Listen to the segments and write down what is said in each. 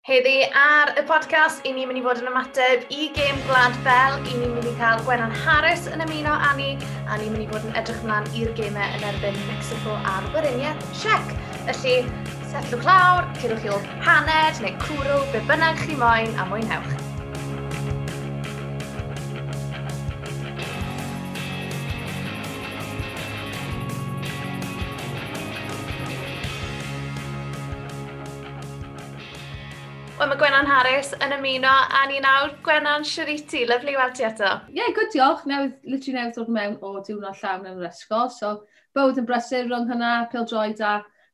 Heddi ar y podcast, i ni'n mynd i fod yn ymateb i gêm Gwlad Belg, i ni'n mynd i cael Gwenan Harris yn ymuno â ni, a ni'n mynd i fod yn edrych ymlaen i'r gemau yn erbyn Mexico a'r Weriniaeth Czech. Felly, setlwch lawr, curwch chi ôl paned neu cwrw, be bynnag chi moyn, a mwynhewch. Wel, mae Gwenan Harris yn ymuno â ni nawr. Gwenan, shwd wyt ti? Lyfli weld ti eto. Ie, yeah, good, diolch. Newydd, literally newydd dod mewn o diwrnod llawn yn yr ysgol. So, bywyd yn brysur rhwng hynna, pêl-droed a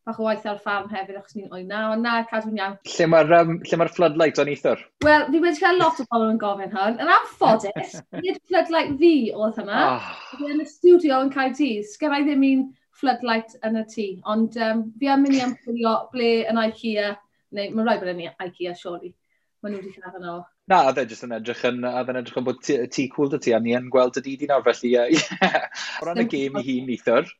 bach o waith ar y ffarm hefyd, achos ni'n oed na, ond na, cadw'n iawn. Lle mae'r lle mae'r floodlight o'n neithiwr? Wel, fi wedi cael lot o bobl yn gofyn hwn. Yn anffodus, nid floodlight fi oedd hynna. Oh. Fi yn y studio yn Caerdydd. Sgen i ddim un floodlight yn y tŷ, ond fi am mynd i ymchwilio ble yn IKEA, neu mae'n rhaid bod yn IKEA, surely. Maen nhw wedi cael yno. Na, oedd e jyst yn edrych yn, oedd e'n edrych yn bod tŷ cool 'da ti, a ni yn gweld y didi nawr, felly, ie. O ran y gêm i hun neithiwr,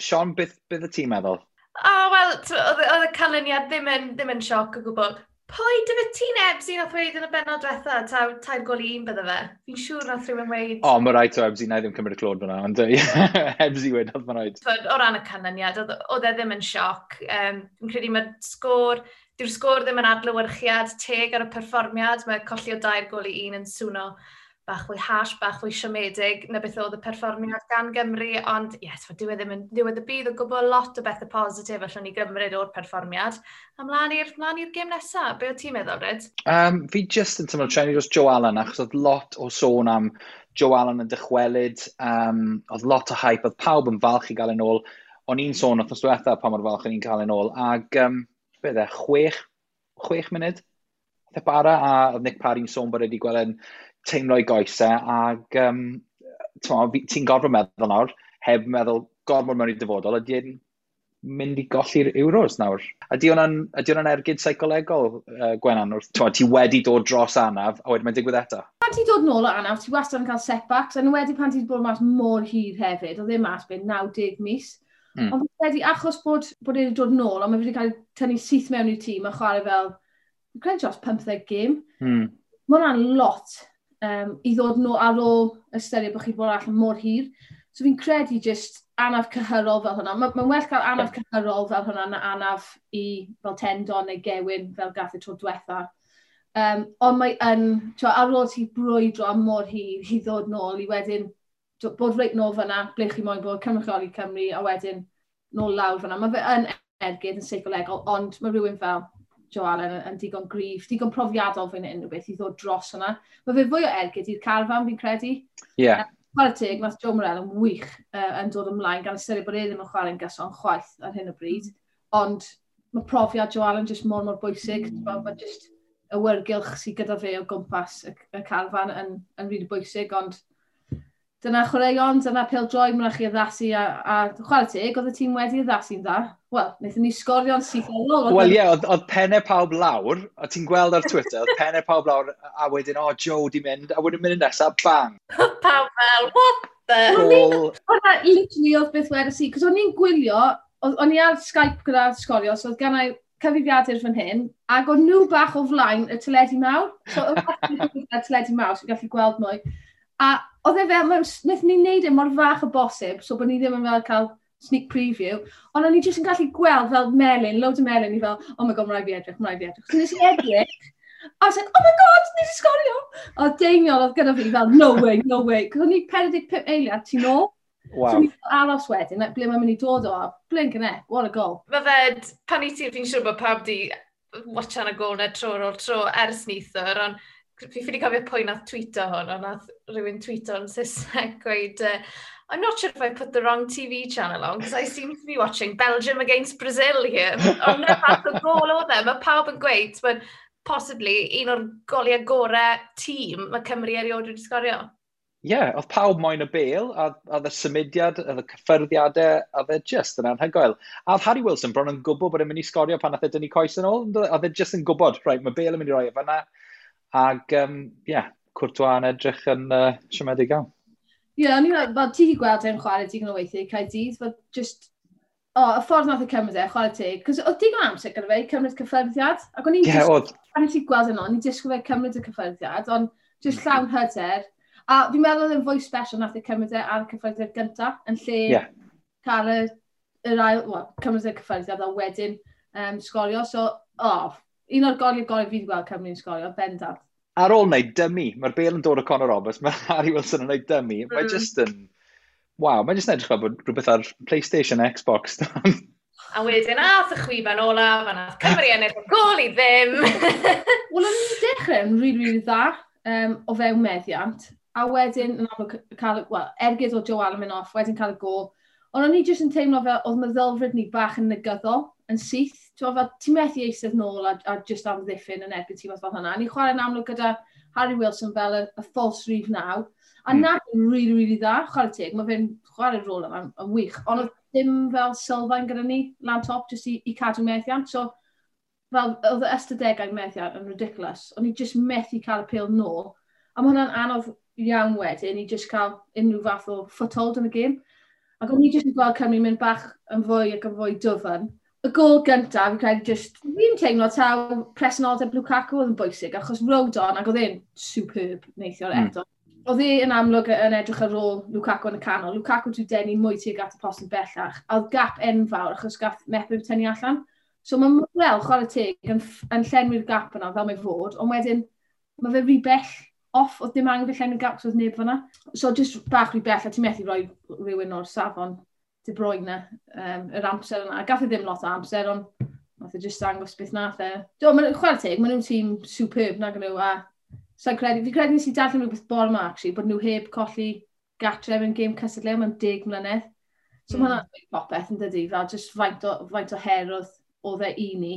Sean, beth y ti'n meddwl? O, wel, oedd y canlyniad ddim yn sioc o gwbl. Pwy dy fe ti'n Ebsi nath weud yn y bennod diwetha, taw 3-1 bydde fe? Fi'n siŵr nath rhywun weud... O, mae rhaid o Ebsi, na i ddim cymryd y clod fyna, ond Ebsi wedodd, mae rhaid. O ran y canlyniad, oedd e ddim yn sioc. Fi'n credu mae'r sgôr, dyw'r sgôr ddim yn adlewyrchiad teg ar y perfformiad, mae colli o 3-1 yn swno bach fwy harsh, bach fwy siomedig na beth oedd y perfformiad gan Gymru, ond yes, dyw e ddim yn ddiwedd y byd o gwbl, lot o bethau positif allwn ni gymryd o'r perfformiad. A mlaen i'r gêm nesaf, be o ti'n meddwl, Rhyd? Fi jyst yn teimlo trenu dros Joe Allen, achos oedd lot o sôn am Joe Allen yn dychwelyd, oedd lot o hype, oedd pawb yn falch i gael yn ôl. O'n i'n sôn wythnos diwetha pa mor falch o'n i'n cael yn ôl, ag beth e, chwech munud? Oedd e bara, a oedd Nick Parry'n sôn bod wedi gweld yn teimlo i goesau, ag ti'n gorfod meddwl nawr, heb meddwl gormod mewn i dyfodol, ydy e'n mynd i golli'r Euros nawr? Ydy hwnna'n ergyd seicolegol, Gwenan, wrth, ti wedi dod dros anaf, a wedyn mae'n digwydd eto? Pan ti'n dod nôl o anaf, ti wastad yn cael setbacks, a wedi pan ti'n bod mas mor hir hefyd, oedd e mas beth 90 mis. Ond fi'n credu, achos bod e wedi dod nôl, ond mae wedi cael tynnu syth mewn i'r tîm a chwarae fel, fi'n credu dros 15 gêm. Mae hwnna'n lot i ddod nôl ar ôl ystyried bod chi wedi bod allan mor hir. So fi'n credu just anaf cyhyrol fel hwnna. Mae'n well cael anaf cyhyrol fel hwnna na anaf i fel tendon neu gewyn fel gath y tro diwetha. Ond mae yn, twa, ar ôl ti brwydro am mor hir i ddod nôl i wedyn bod reit nôl fyna, ble chi moyn bod, cynrychioli Cymru, a wedyn nôl lawr fyna. Mae fe yn ergyd yn seicolegol, ond mae rhywun fel Joe Allen yn digon gryf, digon profiadol fan hyn, rhywbeth i ddod dros hwnna. Mae fe fwy o ergyd i'r carfan, fi'n credu. Chwarae teg, nath Joe Morrell yn wych yn dod ymlaen, gan ystyried bod e ddim yn chwarae'n gyson chwaith ar hyn o bryd. Ond mae profiad Joe Allen jyst mor, mor bwysig. Mae jyst y wyrgylch sydd gyda fe o gwmpas y carfan yn rili bwysig, ond dyna chwaraeon, dyna pêl-droed, mae'n rhaid chi addasu a chwarae teg, oedd y tîm wedi addasu'n dda. Wel, wnaethon ni sgorio'n syth ar ôl. Wel ie, oedd pennau pawb lawr, a ti'n gweld ar Twitter, oedd pennau pawb lawr, a wedyn, o, Joe di mynd, a wedyn mynd nesaf, bang. Pawb fel, what the? Gol. Hwnna literally oedd beth wedes i, cos o'n i'n gwylio, o'n i ar Skype gyda sgorio, so oedd gen i cyfrifiadur fan hyn, ac o'n nhw bach o flaen y teledu mawr. So oedd bach o flaen y teledu mawr, so gallu gweld mwy. A oedd e fel, wnaethon ni wneud e mor fach o bosib, so bod ni ddim yn fel cael sneak preview, ond o'n i jyst yn gallu gweld fel melyn, loads o melyn, i fel, oh my god, mae rhaid fi edrych, mae rhaid fi edrych. So nes i edrych, a I was like, oh my god, nes i sgorio! A Deiniol oedd gyda fi fel, no way, no way, cos o'n i 45 eiliad tu nôl. Wow. So o'n i'n aros wedyn, like, ble mae'n mynd i dod o, a blinking heck, what a goal. Mae fe, pan i ti, fi'n siŵr bod pawb di watchan y gol na tro ar ôl tro ers neithiwr, ond fi ffili cofio pwy nath tweeto hwn, ond nath rhywun tweeto yn Saesneg gweud, I'm not sure if I put the wrong TV channel on, because I seem to be watching Belgium against Brazil here. Ond na fath o gol oedd e, mae pawb yn gweud, but possibly un o'r goliau gorau tîm mae Cymru erioed wedi sgorio. Ie, yeah, oedd pawb moyn y bêl, a oedd y symudiad, oedd y cyffyrddiadau, oedd e just yn anhygoel. A oedd Harry Wilson bron yn gwybod bod e'n mynd i sgorio pan nath e dynnu coes yn ôl, oedd e just yn gwybod, right, mae Bale yn mynd i roi e fan'na. Ag, ie, yeah, Courtois yn edrych yn siomedig iawn. Ie, o'n i'n meddwl, fel ti wedi gweld e'n chwarae digon o weithiau, Caerdydd, fel just, O, y ffordd nath e cymryd e, chwarae teg, cos oedd digon amser gyda fe i cymryd cyffyrddiad, ac o'n i'n yeah, oedd. Pan nes i gweld yno, o'n i'n disgwyl fe cymryd y cyffyrddiad, ond just llawn hyder. A fi'n meddwl oedd e'n fwy special nath e cymryd e ar y cyffyrddiad gyntaf, yn lle cael yr ail, well, cymryd y cyffyrddiad a wedyn sgorio. So, oh, un o'r goliau gorau fi wedi gweld Cymru'n sgorio, bendant. Ar ôl wneud dummy, mae'r bêl yn dod o Conor Roberts, mae Harry Wilson yn wneud dummy, mae just yn... Waw, mae jyst yn edrych fel bod rhywbeth ar PlayStation, Xbox. A wedyn ath y chwiban olaf, a nath Cymru ennill o gôl i ddim. Wel, o'n i'n dechrau yn rili, rili dda o fewn meddiant. A wedyn, yn amlwg, cael, well, ergyd o Joe Allen mynd off, wedyn cael y gôl. Ond o'n i jyst yn teimlo fel oedd meddylfryd ni bach yn negyddol, yn syth. Ti'n fel, ti'n methu eistedd nôl a just amddiffyn yn erbyn tîm fel hynna. A ni'n chwarae'n amlwg gyda Harry Wilson fel y false rhif 9. A na yn really, really dda, chwarae teg, mae fe'n chwarae'r rôl yma yn wych. Ond oedd dim fel sylfaen gyda ni lan top, jyst i cadw methiant. So, fel, oedd y ystadegau methiant yn ridiculous. O'n i just methu cael y pêl nôl. A mae hwnna'n anodd iawn wedyn i just cael unrhyw fath o foothold yn y gêm. Ac o'n i just yn gweld Cymru mynd bach yn fwy ac yn fwy dwfn. Y gôl gyntaf, fi'n credu just, fi'n teimlo taw presenoldeb Lukaku oedd yn bwysig, achos Rodon, ac oedd e'n superb neithiwr eto. Oedd e yn amlwg yn edrych ar ôl Lukaku yn y canol. Lukaku wedi denu mwy tuag at y post yn bellach. A oedd gap enfawr achos gath Mepham tynnu allan. So mae Morrell, chwarae teg, yn llenwi'r gap yna fel mae fod, ond wedyn mae fe rhy bell off, oedd dim angen fe llenwi'r gap, so oedd neb fyna. So just bach rhy bell, a ti'n methu rhoi rhywun o'r safon De Bruyne yr amser yna. Gath e ddim lot o amser, ond nath e just dangos beth nath e. Do, chwarae teg, maen nhw'n tîm superb nag nhw, a so credu, fi'n credu nes i darllen rhywbeth bore yma, actually, bod nhw heb colli gatre mewn gêm cystadleuol mewn 10 mlynedd. So mae hwnna'n dweud popeth yn dydi, fel just faint o her oedd e i ni.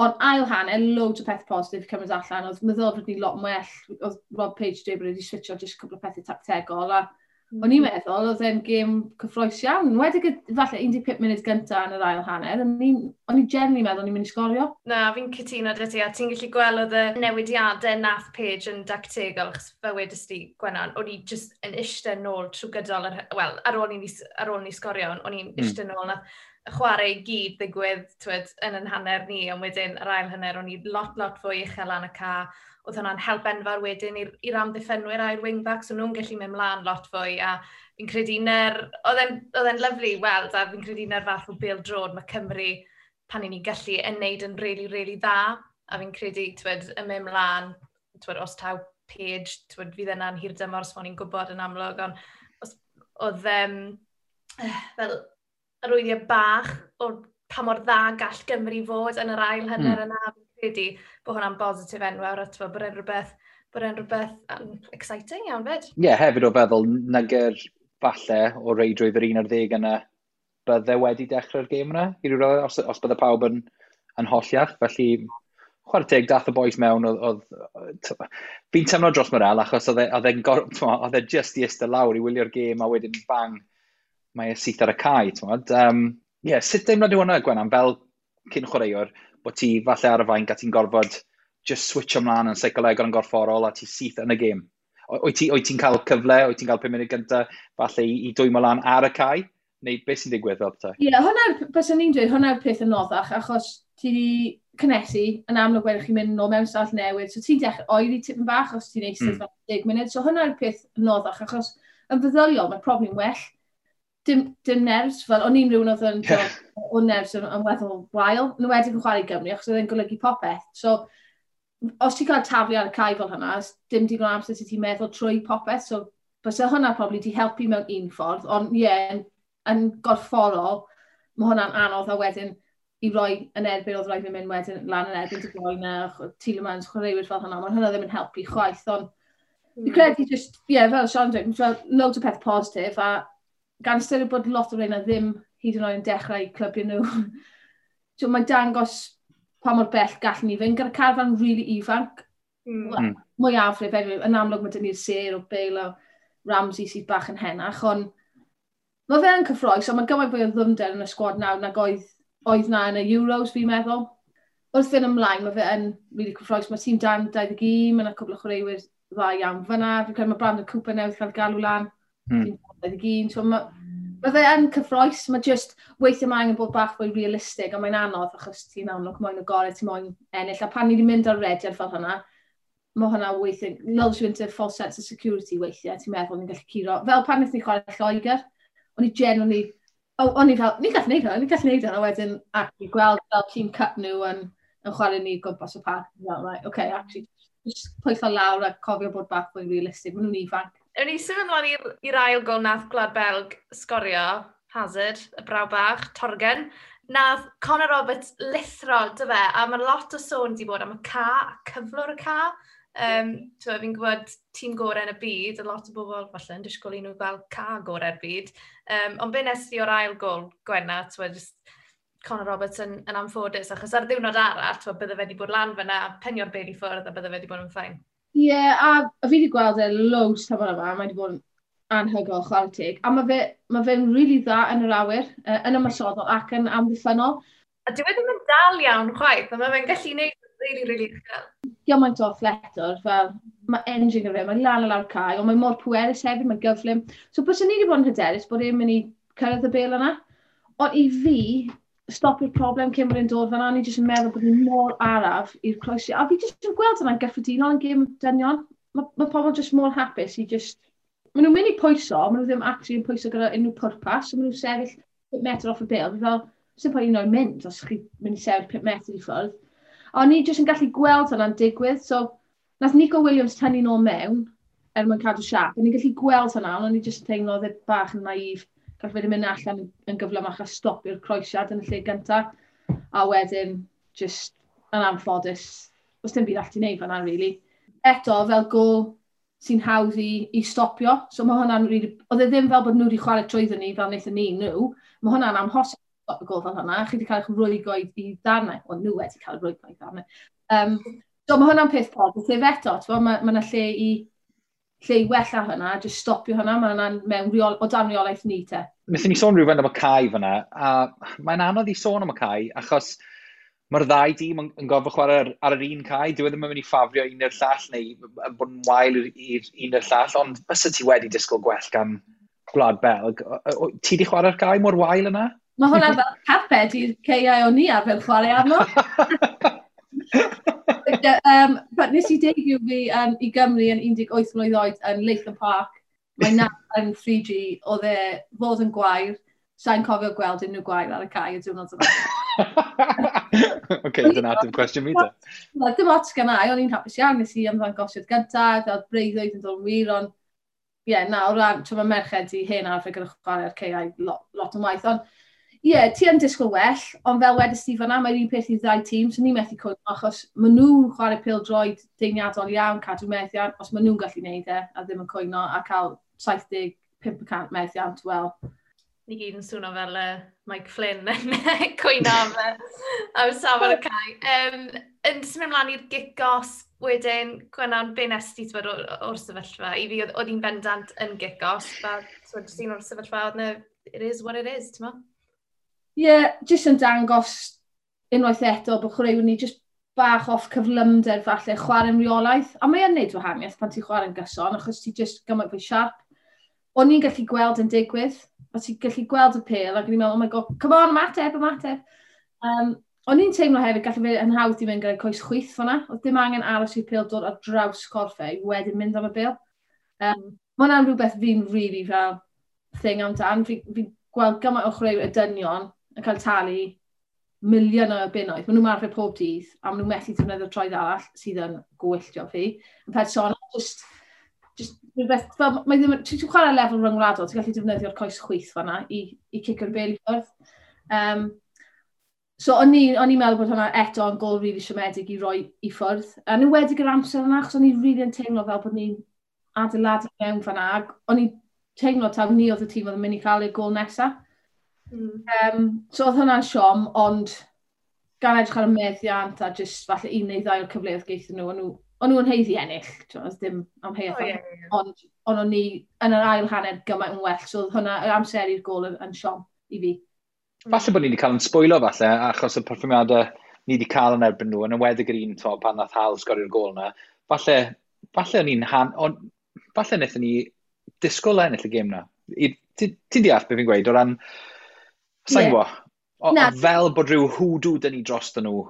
Ond ail hanner, loads o pethau positif cymryd allan, oedd meddylfryd ni lot well, oedd Rob Page dweud bod wedi switcho just cwpl o pethau tactegol, a o'n i'n meddwl oedd e'n gêm cyffrous iawn. Wedi falle 15 munud gyntaf yn yr ail hanner, o'n i'n genuinely meddwl o'n i'n mynd i sgorio. Na, fi'n cytuno 'da ti, a ti'n gallu gweld oedd y newidiadau nath Page yn dactegol, achos fel wedest ti, Gwenan, o'n i just yn eistedd nôl trwy gydol, wel, ar ôl i ni sgorio, o'n i'n eistedd nôl, nath y chwarae i gyd ddigwydd, twyd, yn yn hanner ni, ond wedyn yr ail hanner, o'n i lot, lot fwy uchel lan y ca. Oedd hwnna'n help enfawr wedyn i'r amddiffynwyr a'r wingbacks, o'n nhw'n gallu mynd mlaen lot fwy, a fi'n credu oedd e'n lyfli weld, a fi'n credu na'r fath o bêl-droed mae Cymru, pan i ni'n gallu, yn neud yn really, really dda, a fi'n credu, twyd, yn mynd mlaen, twyd, os taw Page, twyd, fydd yna'n hir dymor, os ni'n gwybod yn amlwg, ond os, oedd fel arwyddiau bach o pa mor dda gall Gymru fod yn yr ail hanner yna. Fi'n credu bod hwnna'n bositif enfawr, a t'mo, bod e'n rhywbeth exciting iawn fyd. Ie, yeah, hefyd o feddwl nagyr falle o reidrwydd yr 11 yna bydde wedi dechrau'r gêm yna, i ryw raddau, os bydde pawb yn holliach. Felly, chwarae teg, dath y boys mewn, oedd, fi'n teimlo dros Morrell, achos oedd e just i eistedd lawr i wylio'r gêm, a wedyn bang, mae e syth ar y cae, t'mod. Yeah, sut deimlad yw hwnna, Gwenan, fel cyn chwaraewr, bod ti falle ar y fainc a ti'n gorfod just switch ymlaen yn seicolegol yn gorfforol a ti syth yn y gêm? Wyt ti'n cael cyfle, wyt ti'n cael 5 munud gyntaf falle i dwymo lan ar y cae? Neu beth sy'n digwydd fel petai? Ie, yeah, hwnna'r, byswn ni'n dweud, hwnna'r peth yn anoddach, achos ti wedi cynnesu, yn amlwg wedyn chi'n mynd nôl mewn stafell newydd, so ti'n dechrau oeri tipyn bach os ti'n eistedd fel 10 munud, so hwnna'r peth anoddach, achos yn feddyliol mae probably'n well. Dim nerves, fel o'n i'n rhywun oedd yn o nerves yn weddol wael, yn enwedig yn chwarae i Gymru, achos oedd e'n golygu popeth. So, os ti'n cael taflu ar y cae fel hynna, dim digon o amser sydd ti'n meddwl trwy popeth, so byse hwnna probably di helpu mewn un ffordd, ond ie, yeah, yn gorfforol, mae hwnna'n anodd a wedyn i roi yn erbyn, oedd rhaid fi mynd wedyn lan yn erbyn De Bruyne, Tielemans, chwaraewyr fel hynna, mae hwnna ddim yn helpu chwaith, ond fi credu just, ie, yeah, fel Sean dweud, fel loads o peth positif, a gan ystyried bod lot o reina ddim hyd yn oed yn dechrau clybiau nhw, so, mae'n dangos pa mor bell gallwn ni fynd gyda carfan really ifanc. Well, mwyafrif, anyway, yn amlwg mae dyn ni'r sêr o Bale a Ramsey sydd bach yn henach, ond mae fe yn cyffrous, ond mae gymaint fwy o ddyfnder yn y sgwad nawr nag oedd na yn y Euros, fi'n meddwl. Wrth fynd ymlaen, mae fe yn really cyffrous. Mae tîm dan 21, mae yna cwpl o chwaraewyr dda iawn fyna. Fi'n credu mae Brandon Cooper newydd cael galw lan. Tîm dan 21. So mae Mae fe yn cyffroes, mae just weithiau mae angen bod bach fwy realistig, a mae'n anodd achos ti'n amlwg moyn y gorau, ti'n moyn ennill. A pan ni wedi mynd ar rediad fel hynna, mae hwnna weithiau, lulls you into false sense of security weithiau, ti'n meddwl ni'n gallu curo. Fel pan wnaethon ni chwarae Lloegr, o'n i genuinely, oh, o'n i fel, ni'n gallu neud hwnna, ni'n gallu neud hwnna, a wedyn actually gweld fel tîm cup nhw yn chwarae ni gwmpas y parc. Fel, right, okay, actually, just pwyso lawr a cofio bod bach fwy realistig, maen nhw'n ifanc. Ewn ni symud ymlaen i'r ail gol nath Gwlad Belg sgorio, Hazard, y braw bach, Torgen. Nath Conor Roberts lithro, dy fe, a mae lot o sôn di bod am y ca, cyflwr y ca. Fi'n gwybod tîm gorau yn y byd, a lot o bobl falle yn disgwyl i nhw gael ca gorau'r byd. Ond be nes di o'r ail gol, Gwenna, twyd, just Conor Roberts yn anffodus, achos ar ddiwrnod arall, twyd, bydde fe wedi bod lan fyna, penio'r bel i ffwrdd a bydde fe wedi bod yn fine. Ie, yeah, a fi wedi gweld e loads tymor yma, mae wedi bod yn anhygoel chwarae teg. A mae fe'n fe really dda yn yr awyr, yn ymosodol ac yn amddiffynnol. A dyw e ddim yn dal iawn chwaith, a mae fe'n gallu gwneud really, really uchel. Gymaint o athletwr, fel mae engine gyda fe, mae lan a lawr cae, ond mae mor pwerus hefyd, mae'n gyflym. So bys ni wedi bod yn hyderus bod e'n mynd i cyrraedd y bel yna. Ond i fi, stopio'r problem cyn bod e'n dod fan'na, ni jyst yn meddwl bod ni mor araf i'r croesi. A fi jyst yn gweld hwnna'n gyffredinol yn gêm dynion. Mae pobl jyst mor hapus i just... Maen nhw'n mynd i pwyso, maen nhw ddim actually yn pwyso gyda unrhyw pwrpas, so maen nhw'n sefyll 5 metr off y bêl. Fi fel, sy'n pwynt un o'i mynd os chi'n mynd i sefyll 5 metr i ffwrdd. A o'n i jyst yn gallu gweld hwnna'n digwydd, so nath Nico Williams tynnu nôl mewn er mwyn cadw siap. O'n i'n gallu gweld hwnna, ond o'n i jyst yn teimlo oedd e bach yn naif. Gall fe wedi mynd allan yn gyflymach a stopio'r croesiad yn y lle gyntaf. A wedyn, just yn anffodus, os dim byd all ti wneud fan'na, really. Eto, fel gol sy'n hawdd i stopio. So mae hwnna'n really... Oedd e ddim fel bod nhw wedi chwarae trwyddo ni fel wnaethon ni nhw. Mae hwnna'n amhosib stopio gol fel hwnna. Chi wedi cael eich rwygo i ddarnau. Wel, nhw wedi cael eu rwygo i ddarnau. So mae hwnna'n peth positif eto. Mae yna lle i wella hwnna, just stopio hwnna, mae hwnna'n mewn reol, o dan reolaeth ni te. Wnaethon ni sôn rhywfaint am y cae fyna, a mae'n anodd i sôn am y cae, achos mae'r ddau dîm yn gorfod chwarae ar yr un cae. Dyw e ddim yn mynd i ffafrio un i'r llall neu bod yn wael i'r un i'r llall, ond bysa ti wedi disgwyl gwell gan Gwlad Belg. Ti di chwarae'r cae mor wael yna? Mae hwnna fel carped i'r caeau o'n i arfer chwarae arno. But nes i debut fi i Gymru yn 18 mlwydd oed yn Latham Park. Mae na yn 3G, oedd e fod yn gwair. Sa'n cofio gweld unrhyw gwair ar y cae y diwrnod yma. Oce, dyna ateb cwestiwn fi te. Dim ots gan i, o'n i'n hapus iawn, nes i ymddangosiad gyntaf, oedd breuddwyd yn dod yn wir, ond ie, yeah, na, o ran, mae merched i hen arfer gyda chwarae ar caeau lot yn waith, ond ie, yeah, ti yn disgwyl well, ond fel wedys ti fan'na, mae'r un peth i ddau tîm, so ni'n methu cwyno, achos maen nhw'n chwarae pêl-droed deiniadol iawn, cadw methiant, os maen nhw'n gallu neud e, a ddim yn cwyno, a cael 75% methiant, wel. Ni gyd yn swno fel Mike Flynn yn cwyno am safon y cae. Yn symud ymlaen i'r gic-off wedyn, Gwennan, be nes ti o'r sefyllfa? I fi, oedd hi'n bendant yn gic-off, fel, jyst un o'r sefyllfa, oedd na, it is what it is, ti'n mo? Ie, yeah, jyst yn dangos unwaith eto bod chwaraewyr ni jyst bach off cyflymder falle, chwarae'n reolaeth. A mae yn neud wahaniaeth pan ti'n chwarae'n gyson, achos ti jyst gymaint fwy siarp. O'n i'n gallu gweld yn digwydd, o ti'n gallu gweld y pêl, ac o'n i'n meddwl, oh my god, come on, ymateb, ymateb. O'n i'n teimlo hefyd, gallu fe yn hawdd i fynd gyda'i coes chwith fan'na. Oedd dim angen aros i'r pêl dod ar draws corff e i wedyn mynd am y bêl. Mae hwnna'n rhywbeth fi'n really fel thing amdan. Fi gweld gymaint o chwaraewyr y dynion yn cael talu miliwn o bunnoedd. Maen nhw'n marfer pob dydd, a maen nhw'n methu defnyddio troed arall sydd yn gwylltio fi. Yn personol, just rhywbeth, fel, mae ddim, ti'n chwarae lefel ryngwladol, ti'n gallu defnyddio'r coes chwith fan'na i cicio'r bêl i ffwrdd. So o'n i'n meddwl bod hwnna eto yn gol really siomedig i roi i ffwrdd. A nhw wedi gyda'r amser yna, achos o'n i'n really yn teimlo fel bod ni'n adeiladu mewn fan'na. Ac o'n i'n teimlo taw ni oedd y tîm oedd yn mynd i cael ei gol nesaf. So oedd hwnna'n siom, ond gan edrych ar y meddiant a just falle un neu ddau o'r cyfleoedd geithon nhw, o'n nhw'n haeddu ennill, oedd dim amheuaeth. Oh, yeah, yeah. Ond o'n ni yn yr ail hanner gymaint yn well, so oedd hwnna, yr amser i'r gol yn siom i fi. Falle bod ni wedi cael yn sbwylo falle, achos y perfformiadau ni wedi cael yn erbyn nhw, yn enwedig yr un to, pan nath Hal sgorio'r gol yna, falle o'n i'n falle wnaethon ni disgwyl ennill y gêm na. Ti'n deall beth fi'n gweud, o ran, sa'n gwybod, fel bod rhyw hwdw dyn ni dros nhw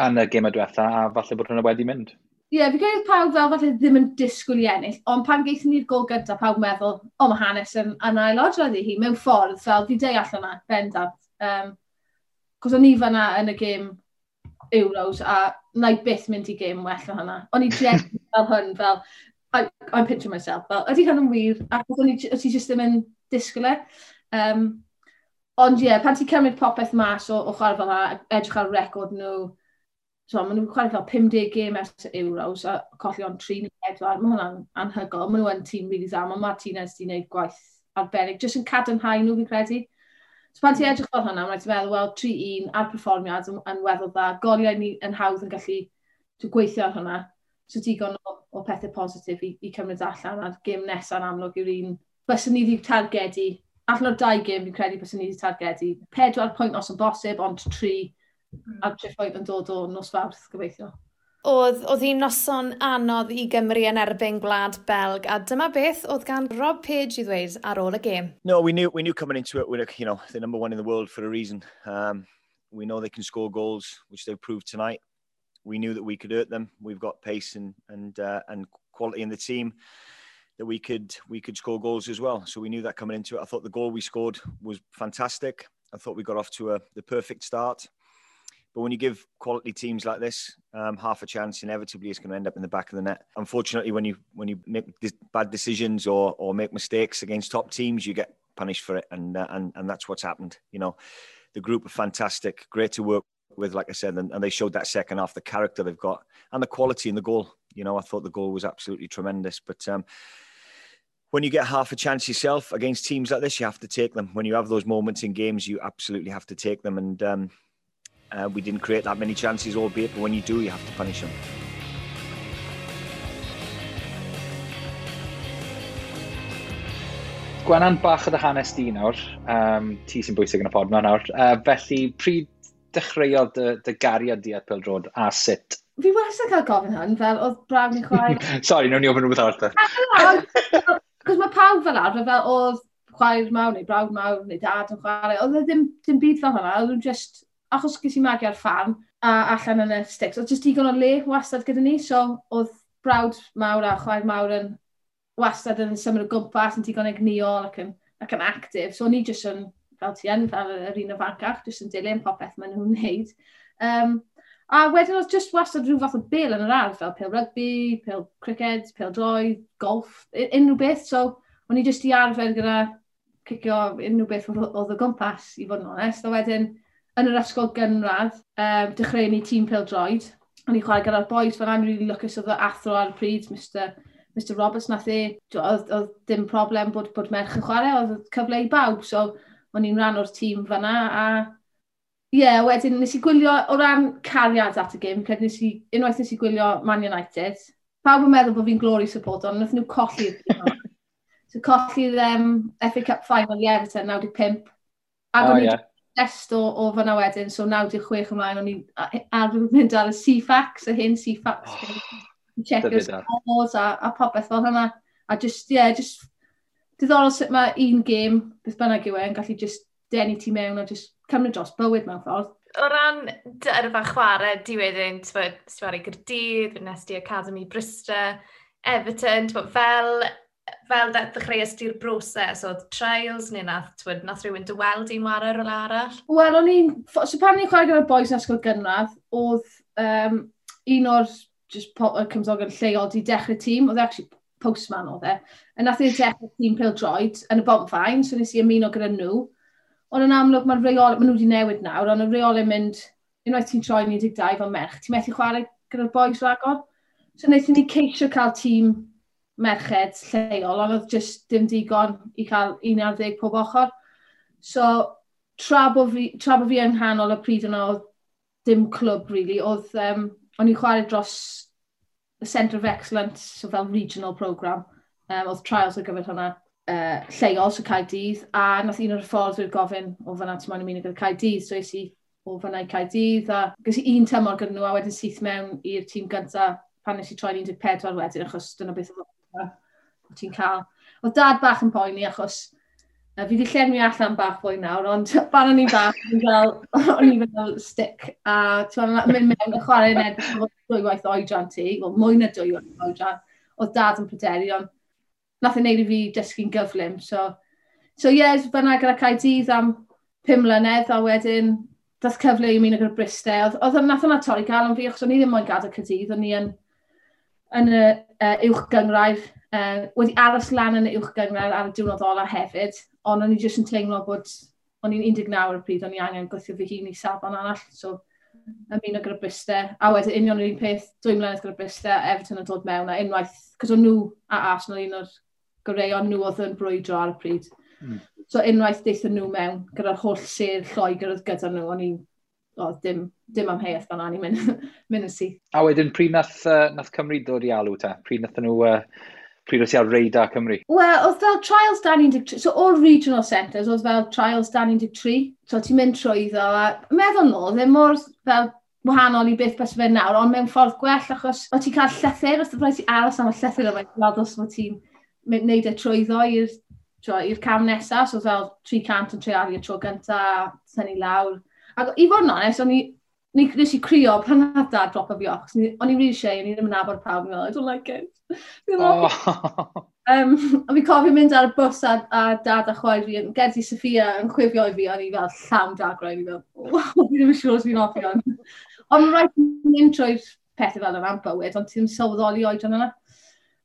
yn y gêm y diwetha, a falle bod hwnna wedi mynd. Ie, yeah, fi credu pawb fel falle ddim yn disgwyl i ennill, ond pan geithon ni'r gol gyntaf, pawb meddwl, o, mae hanes yn ailadrodd i hi, mewn ffordd, fel fi deall yna, bendant. Cos o'n i fanna yn y gêm Euros, a na i byth mynd i gêm well o hynna. O'n i just fel hwn, fel, I'm picturing myself, fel, ydy hwn yn wir, ac o'n i just ddim yn disgwyl e. Ond ie, yeah, pan ti'n cymryd popeth mas o chwarae fel yna, edrych ar record nhw, so, maen nhw'n chwarae fel 50 gêm ers Euros a colli ond 3 neu 4. Mae hwnna'n anhygoel. Maen nhw yn tîm really dda. Mae Martinez wedi gwneud gwaith arbennig. Jyst yn cadarnhau nhw, fi'n credu. So pan ti'n edrych fel hwnna, mae'n ti'n meddwl, wel, 3-1 a'r perfformiad yn weddol dda. Goliau ni yn hawdd yn gallu gweithio ar hwnna. So digon o pethau positif i cymryd allan. A'r gêm nesaf yn amlwg yw'r un. Byswn ni wedi targedu, allan o'r dau gêm fi'n credu byswn ni wedi targedu 4 pwynt os yn bosib, ond 3 a tri pwynt yn dod o nos Fawrth, gobeithio. Oedd hi'n noson anodd i Gymru yn erbyn Gwlad Belg, a dyma beth oedd gan Rob Page i ddweud ar ôl y gêm. No, we knew coming into it, we're the number one in the world for a reason. We know they can score goals, which they've proved tonight. We knew that we could hurt them. We've got pace and quality in the team that we could score goals as well. So we knew that coming into it. I thought the goal we scored was fantastic. I thought we got off to the perfect start. But when you give quality teams like this half a chance, inevitably it's going to end up in the back of the net. Unfortunately, when you make bad decisions or make mistakes against top teams, you get punished for it, and that's what's happened. The group are fantastic, great to work with, like I said, and they showed that second half, the character they've got and the quality in the goal. I thought the goal was absolutely tremendous. But when you get half a chance yourself against teams like this, you have to take them. When you have those moments in games, you absolutely have to take them. And we didn't create that many chances, albeit, but when you do, you have to punish them. Gwenan, bach o dy hanes di nawr. Ti sy'n bwysig yn y pod yma nawr. Felly, pryd dechreuodd dy gariad di at pêl-droed a sut? Fi wastad cael gofyn hwn, fel oedd brawd neu chwaer. Sorry, nawn ni ofyn rhywbeth arall. Cos mae pawb fel arfer, fel oedd chwaer mawr neu brawd mawr neu dad yn chwarae. Oedd e ddim byd fel hwnna, oedd nhw'n just, achos ges i magu ar ffarm a allan yn y sticks, oedd just digon o le wastad gyda ni, so oedd brawd mawr a chwaer mawr yn wastad yn symud o gwmpas, yn digon egnïol ac yn actif. So o'n i just yn, fel ti yn, fel yr un ifancach, just yn dilyn popeth maen nhw'n wneud. A wedyn oedd just wastad rhyw fath o bêl yn yr ardd, fel pêl rygbi, pêl cricket, pêl droed, golf, unrhyw beth. So o'n i just i arfer gyda cicio unrhyw beth oedd o gwmpas, i fod yn onest. A wedyn, yn yr ysgol gynradd, dechreuon ni tîm pêl droed. O'n i chwarae gyda'r boys, fel I'm really lwcus oedd y athro ar y pryd, Mr Roberts, nath e, oedd dim problem bod merch yn chwarae, oedd cyfle i bawb, so o'n i'n rhan o'r tîm fanna, a ie, yeah, wedyn nes i gwylio, o ran cariad at y gêm, credu unwaith nes i gwylio Man United, pawb yn meddwl bod fi'n Glory supporter, ond nath nhw colli'r gêm. So colli'r FA Cup final i Everton, 95. Ac o'n i just o fanna wedyn, so 96 ymlaen, o'n i ar mynd ar y Ceefax, y hen Ceefax. Oh, checkio'r scores a popeth fel hynna. A just, yeah, just diddorol sut mae un gêm, beth bynnag yw e, yn gallu just denu ti mewn a just cymryd dros bywyd mewn ffordd. O ran dy yrfa chwarae di wedyn, ti'n chwarae Gaerdydd, nes di Academy Bryste, Everton, t'mod, fel ddechreuais di'r broses, oedd trials neu nath rhywun dy weld i'n ware rhywle arall? Wel, o'n i'n... So pan o'n i'n chwarae gyda'r boys yn ysgol gynradd, oedd un o'r just y cymdogion lleol di dechrau tîm, oedd e actually postman oedd e, a nath e dechrau tîm pêl-droed yn y Bontfaen, so nes i ymuno gyda nhw. Ond yn amlwg, mae'r reol, maen nhw wedi newid nawr, ond y reolau mynd, unwaith ti'n troi 12 fel merch, ti'n methu chwarae gyda'r boys ragor. So wnaethon ni ceisio cael tîm merched lleol, ond oedd just dim digon i cael 11 pob ochr. So, tra bo fi yng nghanol y pryd yna, oedd dim clwb, really. Oedd, o'n i'n chwarae dros y Centre of Excellence, so fel regional programme. Oedd trials ar gyfer hwnna lleol, so Caerdydd, a nath un o'r hyfforddwyr gofyn o fanna ti'n moyn ymuno gyda Caerdydd, so es i o fanna i Caerdydd, a ges i un tymor gyda nhw, a wedyn syth mewn i'r tîm gyntaf pan nes i troi 14 wedyn, achos dyna beth oedd Ti'n cael. Oedd dad bach yn poeni achos fi wedi llenwi allan bach fwy nawr, ond pan o'n i'n bach, o'n i fel stick. A ti'n mynd mewn y chwarae yn edrych 2 gwaith oedran ti, wel mwy na 2 waith oedran, oedd dad yn pryderu, ond nath e wneud i fi dysgu'n gyflym. So ie, yeah, fyna gyda Caerdydd am 5 mlynedd, a wedyn dath cyfle i ymuno gyda Bryste. Oedd nath hwnna torri galon fi, achos o'n i ddim moyn gadael Caerdydd, o'n i yn y uwch gyngrair, wedi aros lan yn y uwch gyngrair ar y diwrnod ola hefyd, ond o'n i jyst yn teimlo bod o'n i'n 19 ar y pryd, o'n i angen gweithio fy hun i safon arall, so ymuno gyda Bryste, a wedyn union yr un peth, 2 mlynedd gyda Bryste, Everton yn dod mewn, a unwaith, cos o'n nhw a Arsenal un o'r goreuon nhw oedd yn brwydro ar y pryd. So unwaith deithon nhw mewn, gyda'r holl sêr Lloegr oedd gyda nhw, o'n i'n, oh, dim amheuaeth fan i'n mynd yn syth. A wedyn, pryd nath Cymru dod i alw ta? Pryd nath nhw, pryd oedd ti ar radar Cymru? Wel, oedd fel trials dan 13, so o'r regional centres, oedd fel trials dan 13, so ti'n mynd trwyddo, a meddwl nôl, ddim mor fel wahanol i beth bys fe nawr, ond mewn ffordd gwell, achos o ti'n cael llythyr, os rhaid ti aros am y llythyr yma, gweld os fod ti'n neud e trwyddo i'r cam nesaf, so fel 300 yn treialu y tro gyntaf, tynnu lawr. Ac i fod yn onest, o'n i, nes i crio pan nath dad dropo fi off, o'n i'n really shy, o'n i ddim yn nabod pawb, o'n i fel, "I don't like it." Oh. A fi cofio mynd ar y bws a dad a chwaer fi, yn Gerddi Sophia yn chwifio i fi, o'n i fel llawn dagrau, o'n i fel, "Oh, fi ddim yn siŵr os fi'n hoffi hwn." Ond mae'n rhaid mynd trwy'r pethau fel yna am bywyd, ond ti'n sylweddoli oedran yna.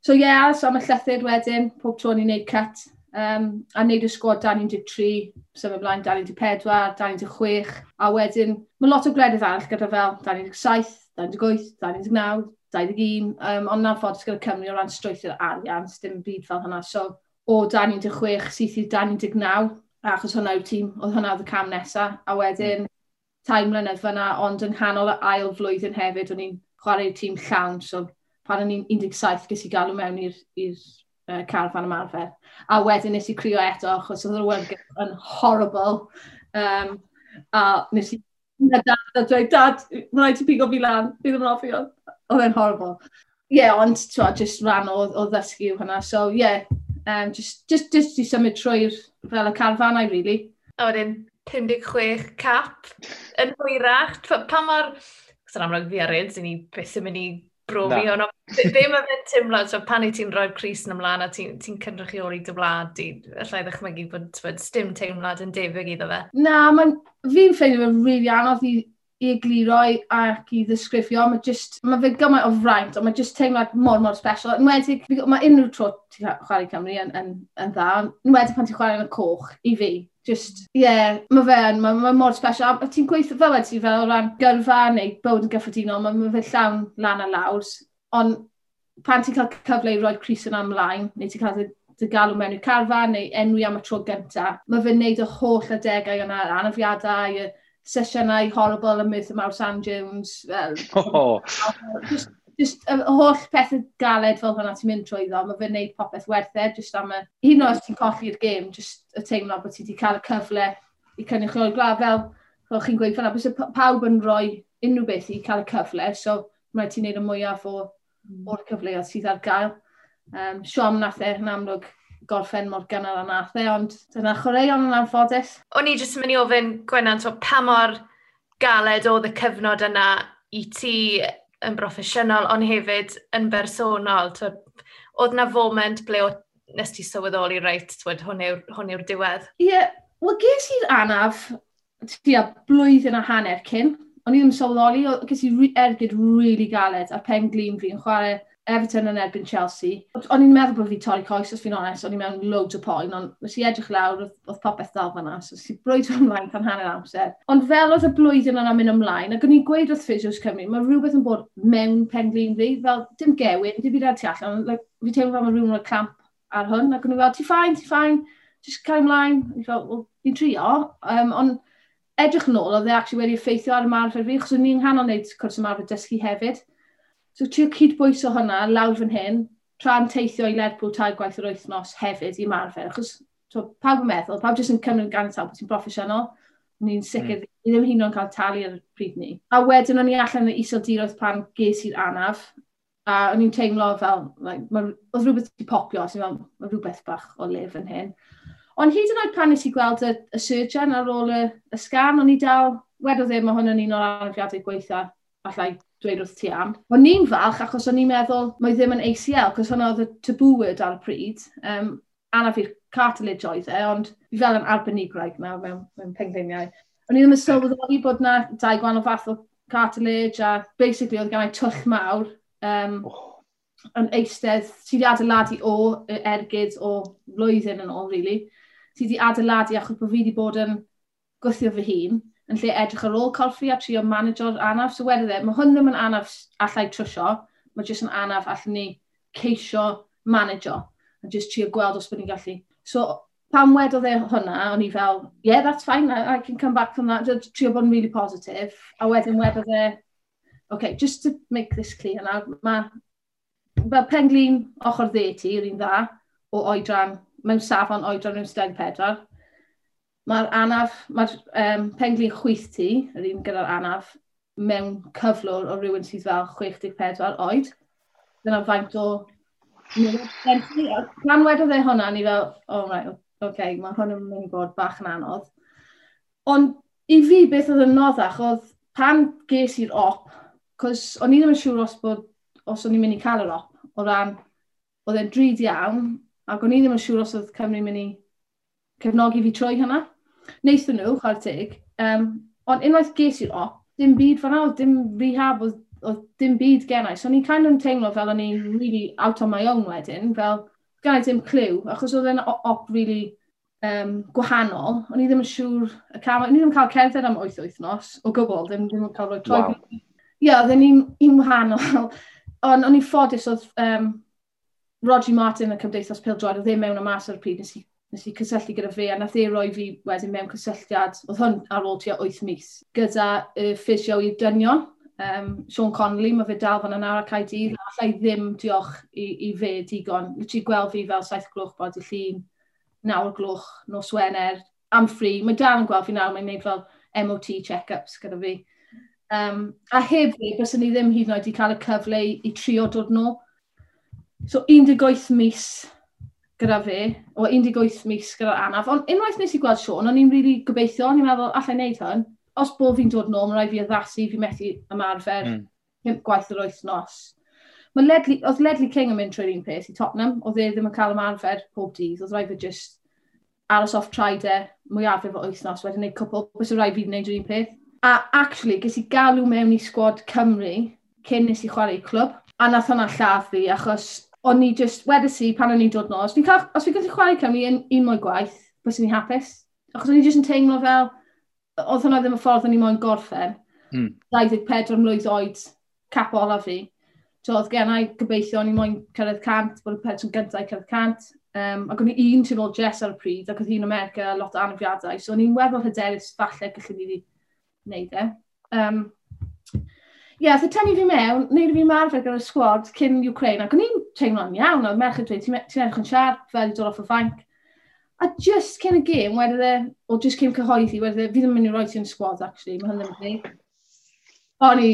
So ie, yeah, so am y llythyr wedyn, pob tro ni'n neud cut, a neud y sgwad dan 13, symud ymlaen dan 14, dan 16, a wedyn mae lot o gwledydd arall gyda fel dan 17, dan 18, dan 19, 21, ond na'n ffordd gyda Cymru o ran strwythur arian, dim byd fel hynna. So o dan 16 syth i dan 19, achos hwnna yw'r tîm, oedd hwnna oedd y cam nesaf, a wedyn 3 mlynedd fyna, ond yng nghanol y ail flwyddyn hefyd, o'n i'n chwarae'r tîm llawn, so pan o'n i'n 17 ges i galw mewn i'r carfan ymarfer. A wedyn nes i crio eto, achos oedd yr awyrgylch yn horrible. A nes i a dad a dweud, "Dad, mae'n rhaid ti pigo fi lan, fi ddim yn hoffi hwn." Oedd e'n horrible. Ie, yeah, ond twa, just rhan o ddysgu yw hwnna. So, ie, yeah, just i symud trwy'r fel y carfanau, really. A wedyn, 56 cap yn hwyrach. Pa mor... Cos yn amlwg fi a Reds, ni byth yn mynd i brofi hwn. Be mae fe'n teimlo, so pan i ti'n rhoi'r crys yn ymlaen a ti'n ti cynrychioli dy wlad di, allai ddechmygu bod dim teimlad yn debyg iddo fe? Na, fi'n ffeindio fe'n really anodd i egluro ac i ddisgrifio. Mae just, mae fe gymaint o fraint, ond mae just teimlad mor, mor special. Enwedig, mae unrhyw tro ti'n chwarae Cymru yn dda, enwedig pan ti'n chwarae yn y coch, i fi. Just, ie, yeah, mae fe yn, mae mor special. A ti'n gweithio fel wedi fel o ran gyrfa neu bywyd yn gyffredinol, mae fe llawn lan a lawr. Ond pan ti'n cael cyfle i roi'r crys yna ymlaen, neu ti'n cael dy galw mewn i'r carfan, neu enwi am y tro gynta, mae fe'n neud y holl adegau yna, yr anafiadau, y sesiynau horrible ym Merthyr Mawr Sand Dunes, fel, oh. Just y holl pethau galed fel hwnna ti'n mynd trwyddo, mae fe'n neud popeth werth e, just am y, hyd yn oed os ti'n colli'r gêm, just y teimlo bod ti wedi cael y cyfle i cynrychioli'r gwlad, fel chi'n gweud fan'na, byse pawb yn rhoi unrhyw beth i cael y cyfle, so mae ti'n neud y mwyaf o'r cyfleoedd sydd ar gael. Siom nath e yn amlwg gorffen mor gynnar a nath e, ond dyna chwaraeon yn anffodus. O'n i jyst yn mynd i ofyn, Gwenan, so, pa mor galed oedd y cyfnod yna i ti yn broffesiynol, ond hefyd yn bersonol? Twyd, oedd na foment ble o, nes ti sylweddoli, reit, twyd, hwn yw'r diwedd? Ie, yeah, wel ges i'r anaf tua blwyddyn a hanner cyn. O'n i ddim yn sylweddoli, ges i ergyd really galed ar pen glin fi yn chwarae Everton yn erbyn Chelsea. O'n i'n meddwl bod fi torri coes, os fi'n onest, o'n i'n mewn loads o poen, ond nes i edrych lawr, oedd popeth dal fan'na, so nes i brwydro ymlaen tan hanner amser. Ond fel oedd y blwyddyn yna'n mynd ymlaen, ac o'n i'n gweud wrth Physios Cymru, mae rhywbeth yn bod mewn pen glin fi, fel dim gewyn, dim byd ar tu allan, like, fi teimlo fel mae rhywun rhoi clamp ar hwn, ac o'n i'n fel, "Ti fine, ti fine, just cael ymlaen." O'n i'n fel, "Well, fi'n trio," ond edrych yn ôl, oedd e actually wedi effeithio ar ymarfer fi, achos o'n i'n nghanol wneud cwrs ymarfer dysgu hefyd. So trio cydbwyso hwnna lawr fan hyn, tra'n teithio i Lerpwl tair gwaith yr wythnos hefyd i ymarfer, achos so, pawb yn meddwl, pawb jyst yn cymryd ganiataol bod ti'n broffesiynol. Ni'n sicr, ni ddim hyd yn oed yn cael talu ar y pryd ni. A wedyn o'n i allan yn y Iseldiroedd pan ges i'r anaf. A o'n i'n teimlo fel, like, oedd rhywbeth wedi popio, so fel, mae rhywbeth bach o lef yn hyn. Ond hyd yn oed pan nes i gweld y surgeon ar ôl y sgan, o'n i dal, wedodd e, mae hwn yn un o'r anafiadau gweitha allai dweud wrth ti am. O'n i'n falch achos o'n i'n meddwl mae ddim yn ACL, cos hwnna oedd y taboo word ar y pryd. Anaf i'r cartilage oedd e, ond fi fel yn arbenigwraig nawr mewn pengliniau. O'n i ddim yn sylweddoli bod na dau gwahanol fath o cartilage a basically oedd gen i twll mawr yn eistedd, ti wedi adeiladu o ergyd o flwyddyn yn ôl, really. Ti wedi adeiladu achos bod fi wedi bod yn gwthio fy hun yn lle edrych ar ôl corff fi a trio manageo'r anaf. So wedodd e, mae hwn ddim yn anaf allai trwsio, mae jyst yn anaf allwn ni ceisio manageo a jyst trio gweld os bod ni'n gallu. So pan wedodd e hwnna, o'n i fel, "Yeah, that's fine, I can come back from that," just trio bod yn really positive. A wedyn wedodd e, "Okay, just to make this clear now, mae fel penglin ochr dde ti, yr un dda, o oedran, mewn safon oedran rhywun 24. Mae'r anaf, mae'r penglin chwith ti, yr un gyda'r anaf, mewn cyflwr o rhywun sydd fel 64 oed. Dyna faint o gen ti." A pan wedodd e hwnna, ni fel, "Oh right, okay, mae hwn yn mynd i bod bach yn anodd." Ond i fi, beth oedd yn noddach oedd pan ges i'r op, cos o'n i ddim yn siŵr os o'n i'n mynd i cael yr op, o ran, oedd e'n drud iawn, ac o'n i ddim yn siŵr os oedd Cymru'n mynd i cefnogi fi trwy hynna. Wnaethon nhw, chwarae teg, ond unwaith ges i'r op, dim byd fan'na, oedd dim rehab, oedd dim byd gennau. So o'n i'n kind of teimlo fel o'n i'n really out on my own wedyn, fel gen i ddim clue, achos oedd e'n op really gwahanol. O'n i ddim yn siŵr y cam, o'n i ddim yn cael cerdded am 8 wythnos o gwbl, ddim yn cael rhoi troi. Ie, yeah, oedd e'n un wahanol. Ond o'n i'n ffodus oedd Roger Martin y Cymdeithas Pêl-droed, oedd e mewn a mas ar y pryd, nes i cysylltu gyda fe, a nath e roi fi wedyn mewn cysylltiad, oedd hwn ar ôl tua 8 mis, gyda y ffisio i'r dynion, Sean Connolly, mae fe dal fan yna ar Caerdydd, allai ddim diolch i fe digon. Literally gweld fi fel 7 gloch bod y llun, 9 gloch, nos Wener, am free. Mae dal yn gweld fi nawr, mae'n gwneud fel MOT check-ups gyda fi. A heb fi, byswn ni ddim hyd yn oed i cael y cyfle i trio dod nôl. So 18 mis gyda fe, o 18 mis gyda'r anaf. Ond unwaith nes i gweld Sean, o'n i'n really gobeithio, o'n i'n meddwl, allai wneud hwn. Os bo fi'n dod nôl, mae rhaid fi addasu, fi methu ymarfer 5 gwaith yr wythnos. Mae Ledley, oedd Ledley King yn mynd trwy'r un peth i Tottenham, oedd e ddim yn cael ymarfer pob dydd, oedd rhaid fi just aros off traed e mwyafrif o wythnos, wedyn gwneud cwpl, bys rhaid fi wneud yr un peth. A actually, ges i galw mewn i sgwad Cymru cyn nes i chwarae i clwb, a nath hwnna lladd fi, achos o'n i just, wedes i pan o'n i'n dod nôl, os fi'n gallu chwarae Cymru un mwy gwaith, bys i'n hapus. Achos o'n i just yn teimlo fel, oedd hwnna ddim y ffordd o'n i moyn gorffen. 24 mlwydd oed, cap ola fi. So, oedd gen i gobeithio o'n i moyn cyrraedd 100, bod y person gyntaf i cyrraedd 100. Ac o'n i un tu ôl Jess ar y pryd, ac oedd hi'n America, lot o anafiadau. So o'n i'n weddol hyderus falle gallwn i fi wneud e. Ie, yeah, so tynnu fi mewn, wneud fi marfer gyda'r sgwad cyn Ukraine, ac o'n i'n teimlo'n iawn, oedd merch yn dweud, "Ti'n edrych yn siarp, fel i dod off y fainc." A just cyn y gêm, wedodd e, o just cyn cyhoeddi, wedodd e, "Fi ddim yn mynd i roi ti yn sgwad, actually, mae hwn ddim yn deg." O'n i,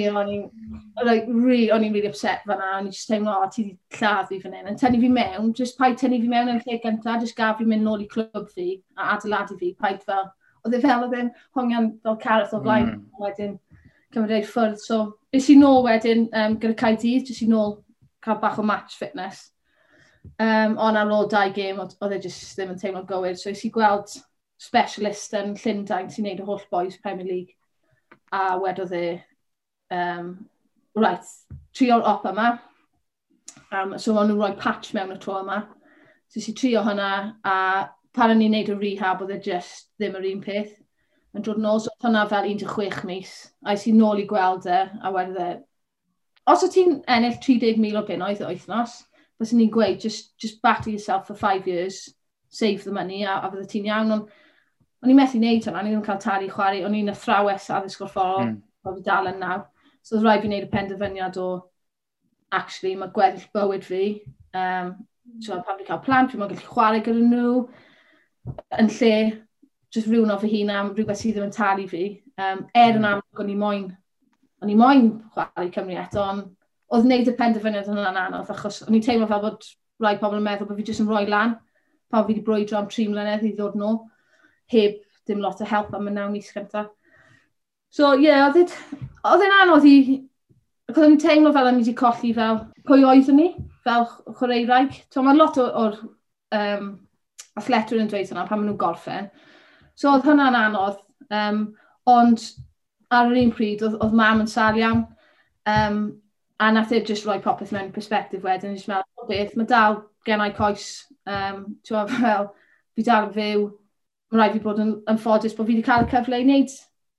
like, really, o'n i'n really upset fan'na, o'n i just teimlo, "O, ti wedi lladd fi fan hyn." And tynnu fi mewn, just paid tynnu fi mewn yn lle gyntaf, just gaf fi mynd nôl i clwb fi a adeiladu fi, paid fel, oedd e fel oedd e'n hongian fel carrot o flaen, wedyn cymryd ei ffwrdd. So, es i nôl wedyn gyda Caerdydd, jyst i nôl cael bach o match fitness. Ond ar ôl dau gêm, oedd e jyst ddim yn teimlo'n gywir. So, es i gweld specialist yn Llundain sy'n neud y holl boys Premier League. A wedodd e, "Right, trio'r op yma." So, o'n nhw'n rhoi patch mewn y tro yma. So, es i trio hwnna, a pan o'n i'n neud y rehab, oedd e just ddim yr un peth. Yn dod nôl, so oedd hwnna fel 16 mis. A es i nôl i gweld e, a wedodd e, "Os o ti'n ennill 30,000 o bunnoedd y wythnos, byswn ni'n gweud, just batter yourself for 5 years, save the money, a fydde ti'n iawn." Ond o'n i'n methu wneud hwnna, o'n i ddim yn cael talu chwarae, o'n i'n athrawes addysg gorfforol, fi dal yn nawr. So oedd rhaid fi wneud y penderfyniad o, actually, mae gweddill bywyd fi, so pan fi'n cael plant, fi'n gallu chwarae gyda nhw, yn lle just rhywun o fy hun am rhywbeth sydd ddim yn talu fi. Er yn amlwg o'n i moyn chwarae Cymru eto, ond Oedd wneud y penderfyniad hwnna'n anodd, achos o'n i'n teimlo fel bod rai pobl yn meddwl bod fi jyst yn rhoi lan, pan fi wedi brwydro am 3 mlynedd i ddod nôl, heb dim lot o help am y 9 mis cyntaf. So, ie, yeah, oedd e'n anodd i. Ac oedd e'n teimlo fel o'n i wedi colli fel pwy oeddwn ni, fel chwaraewraig. So, mae lot o'r athletwyr yn dweud hwnna pan maen nhw'n gorffen. So, oedd hwnna'n anodd. Ond ar yr un pryd, oedd mam yn sâl iawn. A nath e just rhoi popeth mewn perspective wedyn. Just meddwl, "O beth, mae dal gennau coes." Fel, fi dal yn fyw. Mae rhaid fi bod yn ffodus bod fi wedi cael y cyfle i wneud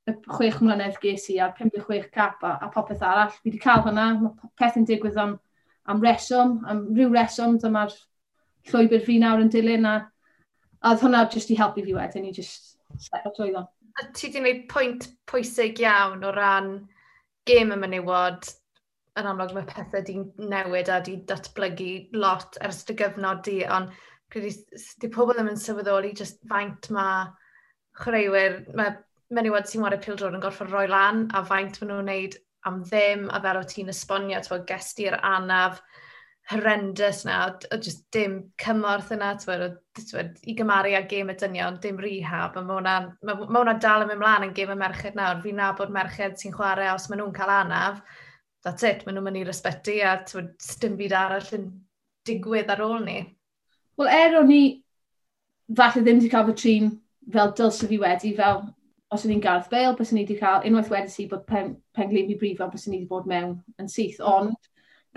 y 6 mlynedd ges i a'r 56 cap a popeth arall. Fi wedi cael hwnna, mae peth yn digwydd am reswm, am ryw reswm, dyma'r llwybr fi nawr yn dilyn a oedd hwnna jyst i helpu fi wedyn i just step trwyddo. A ti wedi gwneud pwynt pwysig iawn o ran gêm y menywod. Yn amlwg mae pethau di newid a di datblygu lot ers dy gyfnod di, ond credu di pobl ddim yn sylweddoli just faint mae chwaraewyr, mae menywod sy'n chwarae pêl-droed yn gorfod rhoi lan a faint maen nhw'n wneud am ddim, a fel o ti'n esbonio, ti'n ges ti'r anaf horrendous na, o just dim cymorth yna, t'wod, i gymaru â gêm y dynion, dim rehab, a ma hwnna dal yn mynd mlaen yn gêm y merched nawr. Fi'n nabod merched sy'n chwarae os maen nhw'n cael anaf, that's it, maen nhw'n mynd i'r ysbyty a t'wod, dim byd arall yn digwydd ar ôl ni. Wel, er o'n i falle ddim wedi cael fy trin fel dylse fi wedi, fel os o'n i'n Gareth Bale, bys ni wedi cael, unwaith wedi si bod pen glin fi brifo, bys ni wedi bod mewn yn syth. Ond,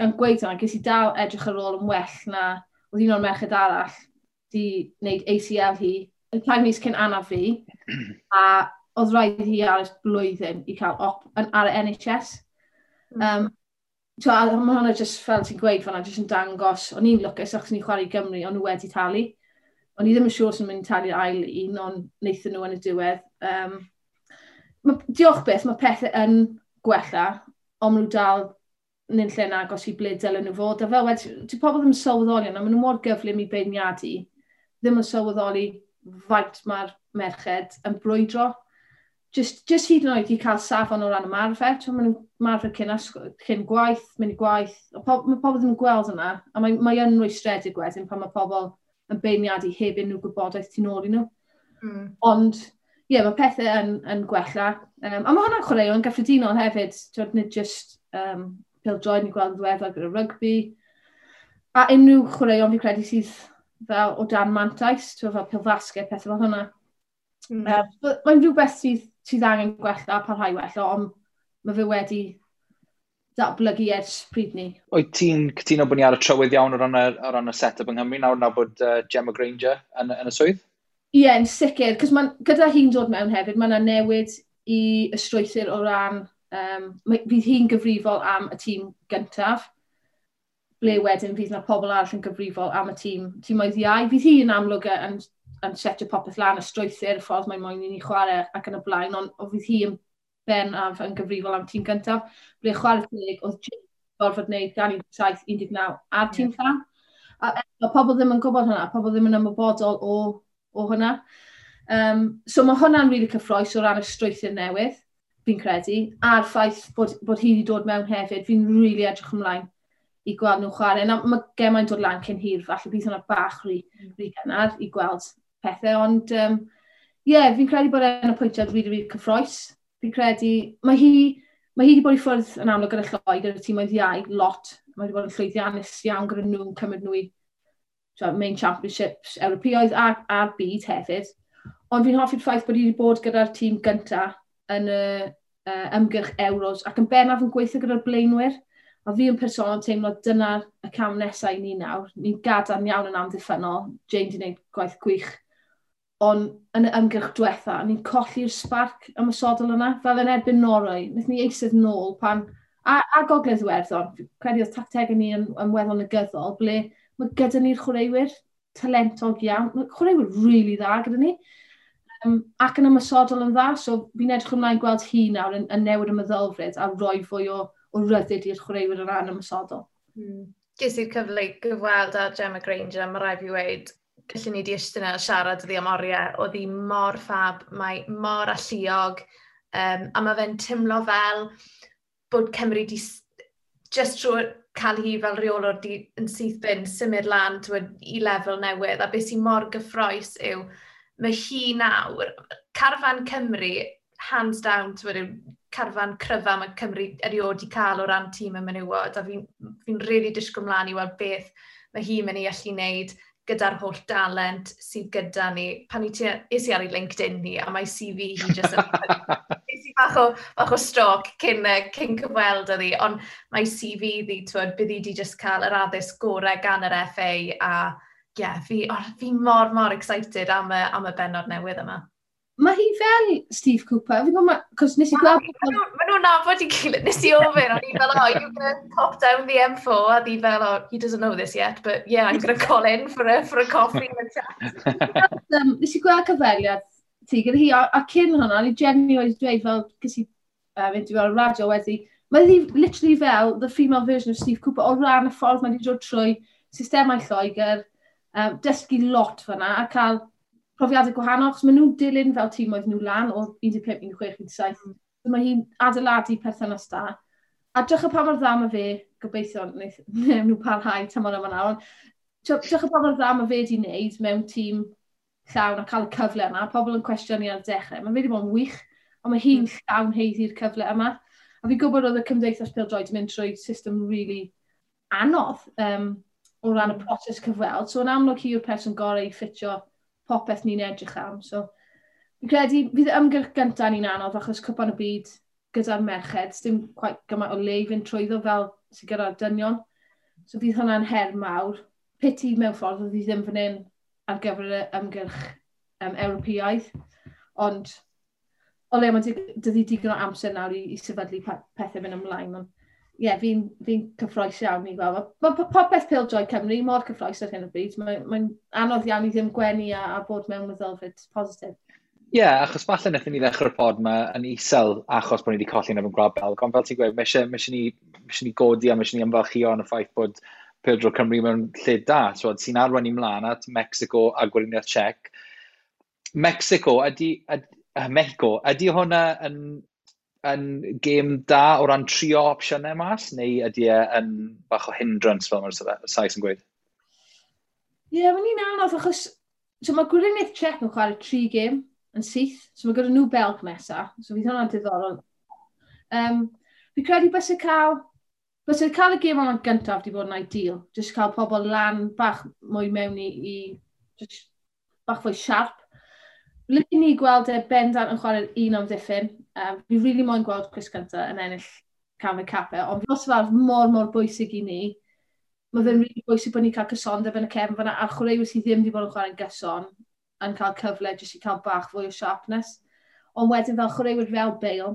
gan gweud hwnna, ges i dal edrych ar ôl yn well na oedd un o'r merched arall di wneud ACL hi, y 3 mis cyn anaf fi, a oedd rhaid hi aros blwyddyn i cael op ar y NHS. So, a mae hwnna just fel ti'n gweud fan'na, just yn dangos, o'n i'n lwcus achos ni'n chwarae i Gymru, o'n nhw wedi talu. O'n i ddim yn siŵr os o'n mynd i talu'r ail un, ond wnaethon nhw yn y diwedd. Diolch beth, mae pethau yn gwella, ond maen nhw dal yn lle'n agos i ble dylen nhw fod. A fel wedi, ti pobl ddim yn sylweddoli yna, maen nhw mor gyflym i beirniadu, ddim yn sylweddoli faint mae'r merched yn brwydro. Just hyd yn oed i cael safon o ran ymarfer, ti'n maen nhw'n ymarfer cyn gwaith, mynd i gwaith. Mae pobl ddim yn gweld yna, a mae yn rwystredig wedyn pan mae pobl yn beirniadu heb unrhyw gwybodaeth tu nôl i nhw. Ond, ie, yeah, mae pethau yn gwella. A mae hwnna'n chwaraeon gyffredinol hefyd, twyd, nid just pêl-droed, ni'n gweld yn ddiweddar gyda rygbi. A unrhyw chwaraeon fi credu sydd fel o dan mantais, twyd, fel pêl-fasged, pethau fel hwnna. Mae'n rhywbeth sydd angen gwella a parhau wella, ond mae fe wedi datblygu ers pryd ni. Wyt ti'n cytuno bod ni ar y trywydd iawn o ran y set-up yng Nghymru nawr bod Gemma Grainger yn y swydd? Ie, yeah, yn sicr, cos gyda hi'n dod mewn hefyd, mae yna newid i y strwythur o ran, fydd hi'n gyfrifol am y tîm gyntaf, ble wedyn fydd yna pobl arall yn gyfrifol am y tîmoedd iau. Fydd hi'n amlwg yn setio popeth lan, y strwythur, y ffordd mae'n moyn i ni chwarae ac yn y blaen, ond fydd hi yn bennaf yn gyfrifol am tîm gyntaf. Ble chwarae teg, oedd Jim gorfod wneud gan 17, 19 a'r tîm llawn. A pobl ddim yn gwybod hwnna, pobl ddim yn ymwybodol o hwnna. So mae hwnna'n rili really cyffrous o ran y strwythur newydd, fi'n credu, a'r ffaith bod hi wedi dod mewn hefyd, fi'n rili really edrych ymlaen i gweld nhw'n chwarae. Na, mae gemau'n dod lan cyn hir, falle bydd hwnna bach rhy gynnar i gweld pethau, ond yeah, fi'n credu bod e'n apwyntiad rili, really, really cyffrous. Fi'n credu, mae hi wedi bod i ffwrdd yn amlwg gyda Lloegr, gyda tîmoedd iau, lot. Mae wedi bod yn llwyddiannus iawn gyda nhw'n cymryd nhw i main championships Ewropeaidd a'r byd hefyd. Ond fi'n hoffi'r ffaith bod hi wedi bod gyda'r tîm gyntaf yn y ymgyrch Euros ac yn bennaf yn gweithio gyda'r blaenwyr. A fi yn personol teimlo dyna'r y cam nesaf i ni nawr. Ni'n gadarn iawn yn amddiffynnol. Jane wedi gwneud gwaith gwych. Ond yn y ymgyrch diwetha, ni'n colli'r spark ymosodol yna. Fel yn erbyn Norwy, wnaethon ni eistedd nôl pan. A Gogledd Iwerddon, credu oedd tactegau ni yn weddol negyddol, ble mae gyda ni'r chwaraewyr talentog iawn. Mae chwaraewyr really dda gyda ni. Ac yn ymosodol yn dda, so fi'n edrych ymlaen gweld hi nawr yn newid y meddylfryd a rhoi fwy o ryddid i'r chwaraewyr o ran ymosodol. Ges i'r cyfle i gyfweld â Gemma Grainger, mae rhaid fi weud, gallwn ni di eistedd yna a siarad iddi am oriau. Oedd hi mor ffab, mae mor alluog, a mae fe'n teimlo fel bod Cymru di Just trwy cael hi fel reolwr di, yn syth bin, symud lan, twyd, i lefel newydd, a beth sy'n mor gyffrous yw, mae hi nawr, carfan Cymru, hands down, twyd, yw carfan cryfa mae Cymru erioed wedi cael o ran tîm y menywod, a fi'n fi really disgwyl mlaen i weld beth mae hi'n mynd i allu wneud gyda'r holl dalent sydd gyda ni. Pan i ti, es i ar ei LinkedIn ni, a mae CV hi jyst yn... Es i bach o stalk cyn cyfweld â hi, ond mae CV ddi, twyd, bydd hi di just cael yr addysg gorau gan yr FA, a yeah, fi mor, mor excited am y benod newydd yma. Mae hi fel Steve Cooper. Fi'n gwybod, cos nes i gweld... Mae nhw'n nabod i gilydd. Nes i ofyn, o'n i fel, "Oh, you gonna pop down the M4?" A di fel, "Oh, he doesn't know this yet, but yeah, I'm gonna call in for a coffee and a chat." Nes i gweld cyfweliad ti gyda hi, a cyn hwnna, ni genuinely wedi dweud fel, cys i interview ar y radio wedi, mae hi literally fel the female version of Steve Cooper o ran y ffordd mae wedi dod trwy systemau Lloegr, dysgu lot fyna a cael profiadau gwahanol, achos maen nhw'n dilyn fel tîm oedd nhw lan o 15, 16, 17. So mae hi'n adeiladu perthynas da. A drych pa mor dda mae fe, gobeithio wneith nhw parhau tymor yma nawr, ond drych pa mor dda mae fe wedi wneud mewn tîm llawn a cael y cyfle yna. Pobl yn cwestiynu ar y dechrau. Mae fe wedi bod yn wych, ond mae hi'n llawn haeddu'r cyfle yma. A fi'n gwybod oedd y Cymdeithas Pêl-droed yn mynd trwy system really anodd o ran y proses cyfweld. So yn amlwg hi yw'r person gorau i ffitio popeth ni'n edrych am. So, fi'n credu fydd y ymgyrch gyntaf ni'n anodd achos Cwpan y Byd gyda'r merched, dim quite gymaint o le i fynd trwyddo fel sydd gyda'r dynion. So fydd hwnna'n her mawr. Pity mewn ffordd oedd hi ddim fan hyn ar gyfer y ymgyrch Ewropeaidd. Ond o le mae dydy digon o amser nawr i sefydlu pethau fynd ymlaen. Ond ie, yeah, fi'n fi cyffrous iawn i gweld. Mae popeth pêl-droed Cymru mor cyffrous ar hyn o bryd. Mae'n mae anodd iawn i ddim gwenu a bod mewn meddylfryd positif. Ie, yeah, achos falle wnaethon ni ddechrau'r pod yma yn isel achos bod ni wedi colli yn erbyn Gwlad Belg, ond fel ti'n gweud, mae eisiau ni godi a mae eisiau ni ymfalchio yn y ffaith bod pêl-droed Cymru mewn lle da, so, sy'n arwain ni mlaen at Mexico a Gweriniaeth Czech. Mexico, ydy, Mexico, ydy hwnna yn gêm da o ran trio opsiynau mas, neu ydy e yn bach o hindrance fel mae'r Sais yn gweud? Ie, yeah, mae'n un anodd achos so mae Gweriniaeth Czech yn chwarae tri gêm yn syth, so mae gyda nhw Belg nesa, so fydd hwnna'n diddorol. Fi credu bys cael y gêm yma'n gyntaf wedi bod yn ideal, just cael pobl lan bach mwy mewn i just bach fwy sharp. Licen ni gweld e bendant yn chwarae'r un amddiffyn. Fi really moyn gweld Chris Gunter yn ennill canfed cap e, ond nos Fawrth mor, mor bwysig i ni. Mae fe'n really bwysig bod ni'n cael cysondeb yn y cefn fyna, a'r chwaraewyr sydd ddim wedi bod yn chwarae'n gyson yn cael cyfle jyst i cael bach fwy o sharpness. Ond wedyn fel chwaraewyr fel Bale,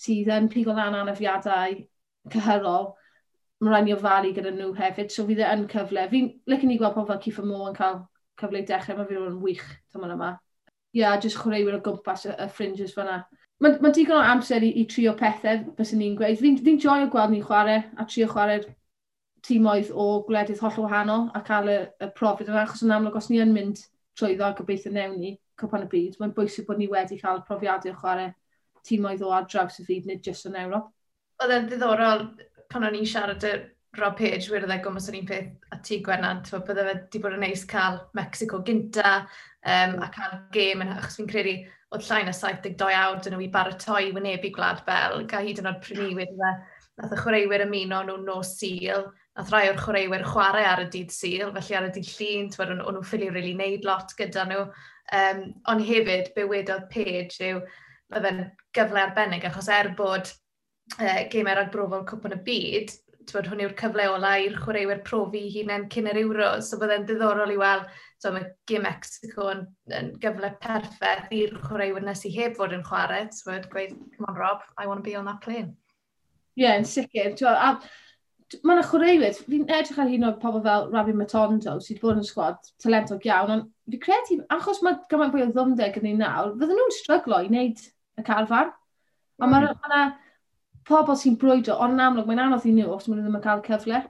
sydd yn pigo lan anafiadau cyhyrol, mae rhaid ni ofalu gyda nhw hefyd, so fydd e yn cyfle. Fi'n licen ni gweld pobl fel Kieffer Moore yn cael cyfle i dechrau, mae fi'n wych tymor yma. Ie, yeah, jyst chwaraewyr o gwmpas y fringes fyna. Mae ma digon o amser i trio pethau, byswn ni'n gweud. Fi'n fi joio gweld ni'n chwarae a trio chwarae'r tîmoedd o gwledydd holl wahanol a cael y profiad yna, achos yn amlwg os ni yn mynd trwyddo a gobeithio newn ni Cwpan y Byd, mae'n bwysig bod ni wedi cael profiadau o chwarae tîmoedd o ar draws y byd, nid jyst yn Ewrop. Oedd e'n ddiddorol pan o'n i'n siarad y Rob Page, wedodd e gwmws yr un peth a ti, Gwennan, ti'n bydde fe wedi bod yn neis cael Mexico gynta a cael gêm, yn, achos fi'n credu oedd llai na 72 awr dyn nhw i baratoi wynebu Gwlad Belg, a hyd yn oed pryd ni wedi fe, nath y chwaraewyr ymuno nhw nos Sul, nath rai o'r chwaraewyr chwarae ar y dydd Sul, felly ar y dydd Llun, ti'n o'n nhw'n ffili really neud lot gyda nhw. Ond hefyd, be wedodd Page yw, mae fe'n gyfle arbennig, achos er bod gemau ragbrofol Cwpan y Byd, twyd, hwn yw'r cyfle ola i'r chwaraewyr profi hunain cyn yr Euro. So byddai'n ddiddorol i weld, so mae gêm Mexico yn gyfle perffaith i'r chwaraewyr nes i heb fod yn chwarae. So gweud, "Come on Rob, I want to be on that plane." Ie, yeah, yn sicr. A mae yna chwaraewyr, fi'n edrych ar hyn o pobl fel Rabbi Matondo, sydd wedi bod yn sgwad talentog iawn, ond fi credu, achos mae gymaint fwy o ddwfnder gyda ni nawr, fydden nhw'n stryglo i wneud y carfan. A mae yna pobl sy'n brwydro, ond yn amlwg mae'n anodd i nhw os maen nhw ddim yn cael cyfle.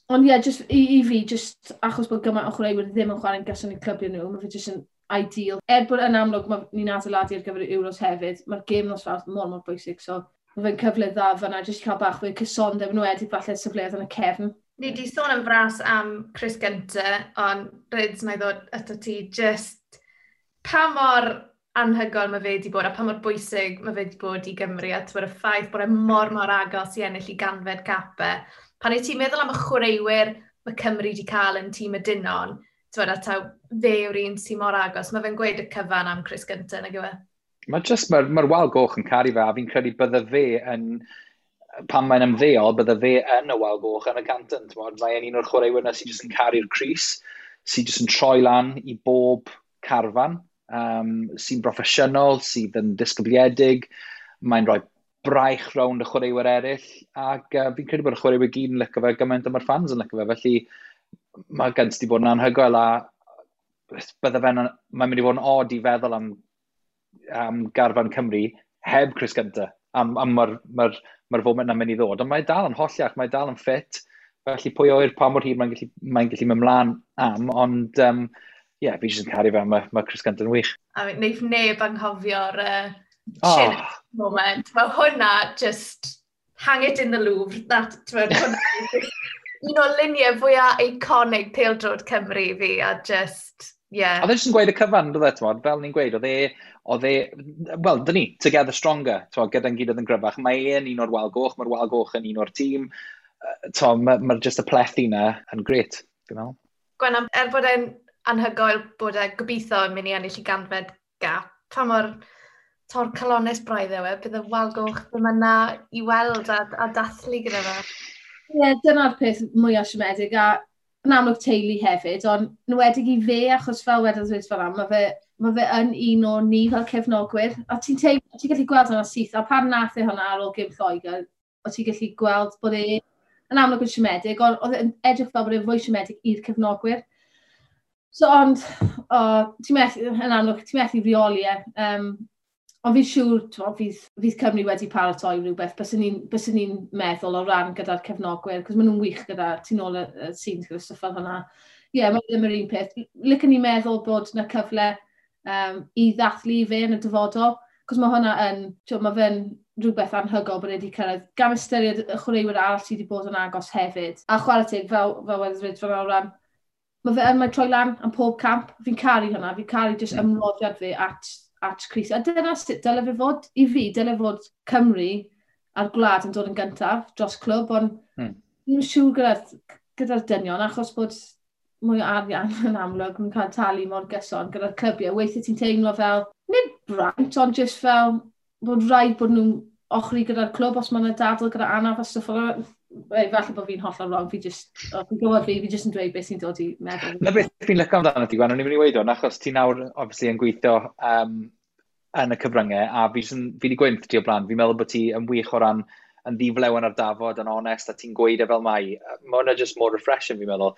Ond ie, yeah, just i fi, just achos bod gymaint o chwaraewyr ddim yn chwarae'n gyson i clybiau nhw, mae fe just yn ideal. Er bod yn amlwg mae ni'n adeiladu ar gyfer y Euros hefyd, mae'r gêm nos Fawrth mor, mor bwysig. So, Mae fe'n cyfle dda fyna, jyst i cael bach fwy cysondeb yn wedi falle safleoedd yn y cefn. Ni di sôn am fras am Chris Gunter, ond Rydz, na i ddod ato ti, just pa mor anhygoel mae fe wedi bod a pa mor bwysig mae fe wedi bod i Gymru a y ffaith bod e mor mor agos i ennill i 100fed cap e. Pan wyt ti'n meddwl am y chwaraewyr mae Cymru wedi cael yn tîm y dynon, t'wod, a taw fe yw'r un sy'n mor agos, mae fe'n gweud y cyfan am Chris Gunter, nag yw e? Mae just, mae'r ma wal goch yn caru fe, a fi'n credu bydde fe yn, pan mae'n ymddeol, bydde fe yn y wal goch yn y Canton. Mae'n un o'r chwaraewyr yna sy'n just yn caru'r crys, sy'n just yn troi lan i bob carfan, sy'n broffesiynol, sydd yn disgybliedig, mae'n rhoi braich rownd y chwaraewyr eraill, ac fi'n credu bod y chwaraewyr gyd yn licio fe gymaint a mae'r fans yn licio fe, felly mae gynt di bod yn anhygoel a bydde fe'n, mae'n mynd i fod yn odd i feddwl am garfan Cymru heb Chris Gunter. Am mae'r ma ma foment na'n mynd i ddod. Ond mae dal yn holliach, mae dal yn ffit. Felly pwy oer pa mor hir mae'n gallu, mae gallu mynd mlaen am, ond yeah, fi jyst yn caru fe, mae Chris Gunter yn wych. A neith neb anghofio'r oh. moment. Mae hwnna just hang it in the Louvre. That, hwnna, un o luniau fwyaf iconic pêl-droed Cymru i fi, a just, yeah. Oedd e jyst yn gweud y cyfan, dwi e, fel ni'n gweud, oedd e, wel, dyn ni, together stronger, t'mod, gyda'n gilydd yn gryfach. Mae e'n un o'r wal goch, mae'r wal goch yn un o'r tîm. Mae ma just y plethu na yn gret, fi'n meddwl. Gwenna, er bod e'n anhygoel bod e gobeithio yn mynd i ennill i 100fed gap, pa mor torcalonnus braidd yw e, bydd y wal goch ddim yna i weld a dathlu gyda fe. Ie, yeah, dyna'r peth mwyaf siomedig, a yn amlwg teulu hefyd, ond nwedig i fe, achos fel wedodd Rhys fel am, mae fe yn un o ni fel cefnogwyr, a ti'n ti gallu gweld hwnna syth, a pan nath e hwnna ar ôl gêm Lloegr, o ti'n gallu gweld bod e yn amlwg yn siomedig, ond oedd e'n edrych fel bod e'n fwy siomedig i'r cefnogwyr. So, ond, o, ti'n methu, yn amlwg, ti'n methu reoli e. Ond fi'n siŵr, t'mo, fydd Cymru wedi paratoi rhywbeth, byswn ni'n meddwl o ran gyda'r cefnogwyr, cos maen nhw'n wych gyda, tu nôl y scenes gyda stwff fel hwnna. Ie, yeah, mae ddim yr un peth. Licen ni meddwl bod na cyfle i ddathlu fe yn y dyfodol, cos mae hwnna yn, t'mo, mae fe'n rhywbeth anhygoel bod e wedi cyrraedd, gan ystyried y chwaraewyr arall sydd wedi bod yn agos hefyd. A chwarae teg, fel wedodd Rhys fel o ran, mae fe yn mae troi lan am pob camp. Fi'n caru hwnna, fi'n caru jyst ymroddiad fe at crys. A dyna sut dyle fe fod, i fi, dyle fod Cymru a'r gwlad yn dod yn gyntaf dros clwb, ond ddim siŵr gyda dynion, achos bod mwy o arian yn amlwg yn cael talu mor gyson gyda'r clybiau. Weithiau ti'n teimlo fel, nid braint, ond just fel bod rhaid bod nhw'n ochri gyda'r clwb os mae yna dadl gyda anaf a stwff fel 'na. Falle bod fi'n hollol wrong, fi just, oh, fi'n gwybod fi just yn dweud beth sy'n dod i meddwl. Na beth fi'n licio amdano ti, Gwen, o'n i'n mynd i weud hwn, achos ti nawr, obviously, yn gweithio yn y cyfryngau, a fi wedi gweud wrth ti o blaen, fi'n meddwl bod ti yn wych o ran yn ddiflew ar dafod, yn onest, a ti'n gweud e fel mai. Mae hwnna just more refreshing, fi'n meddwl.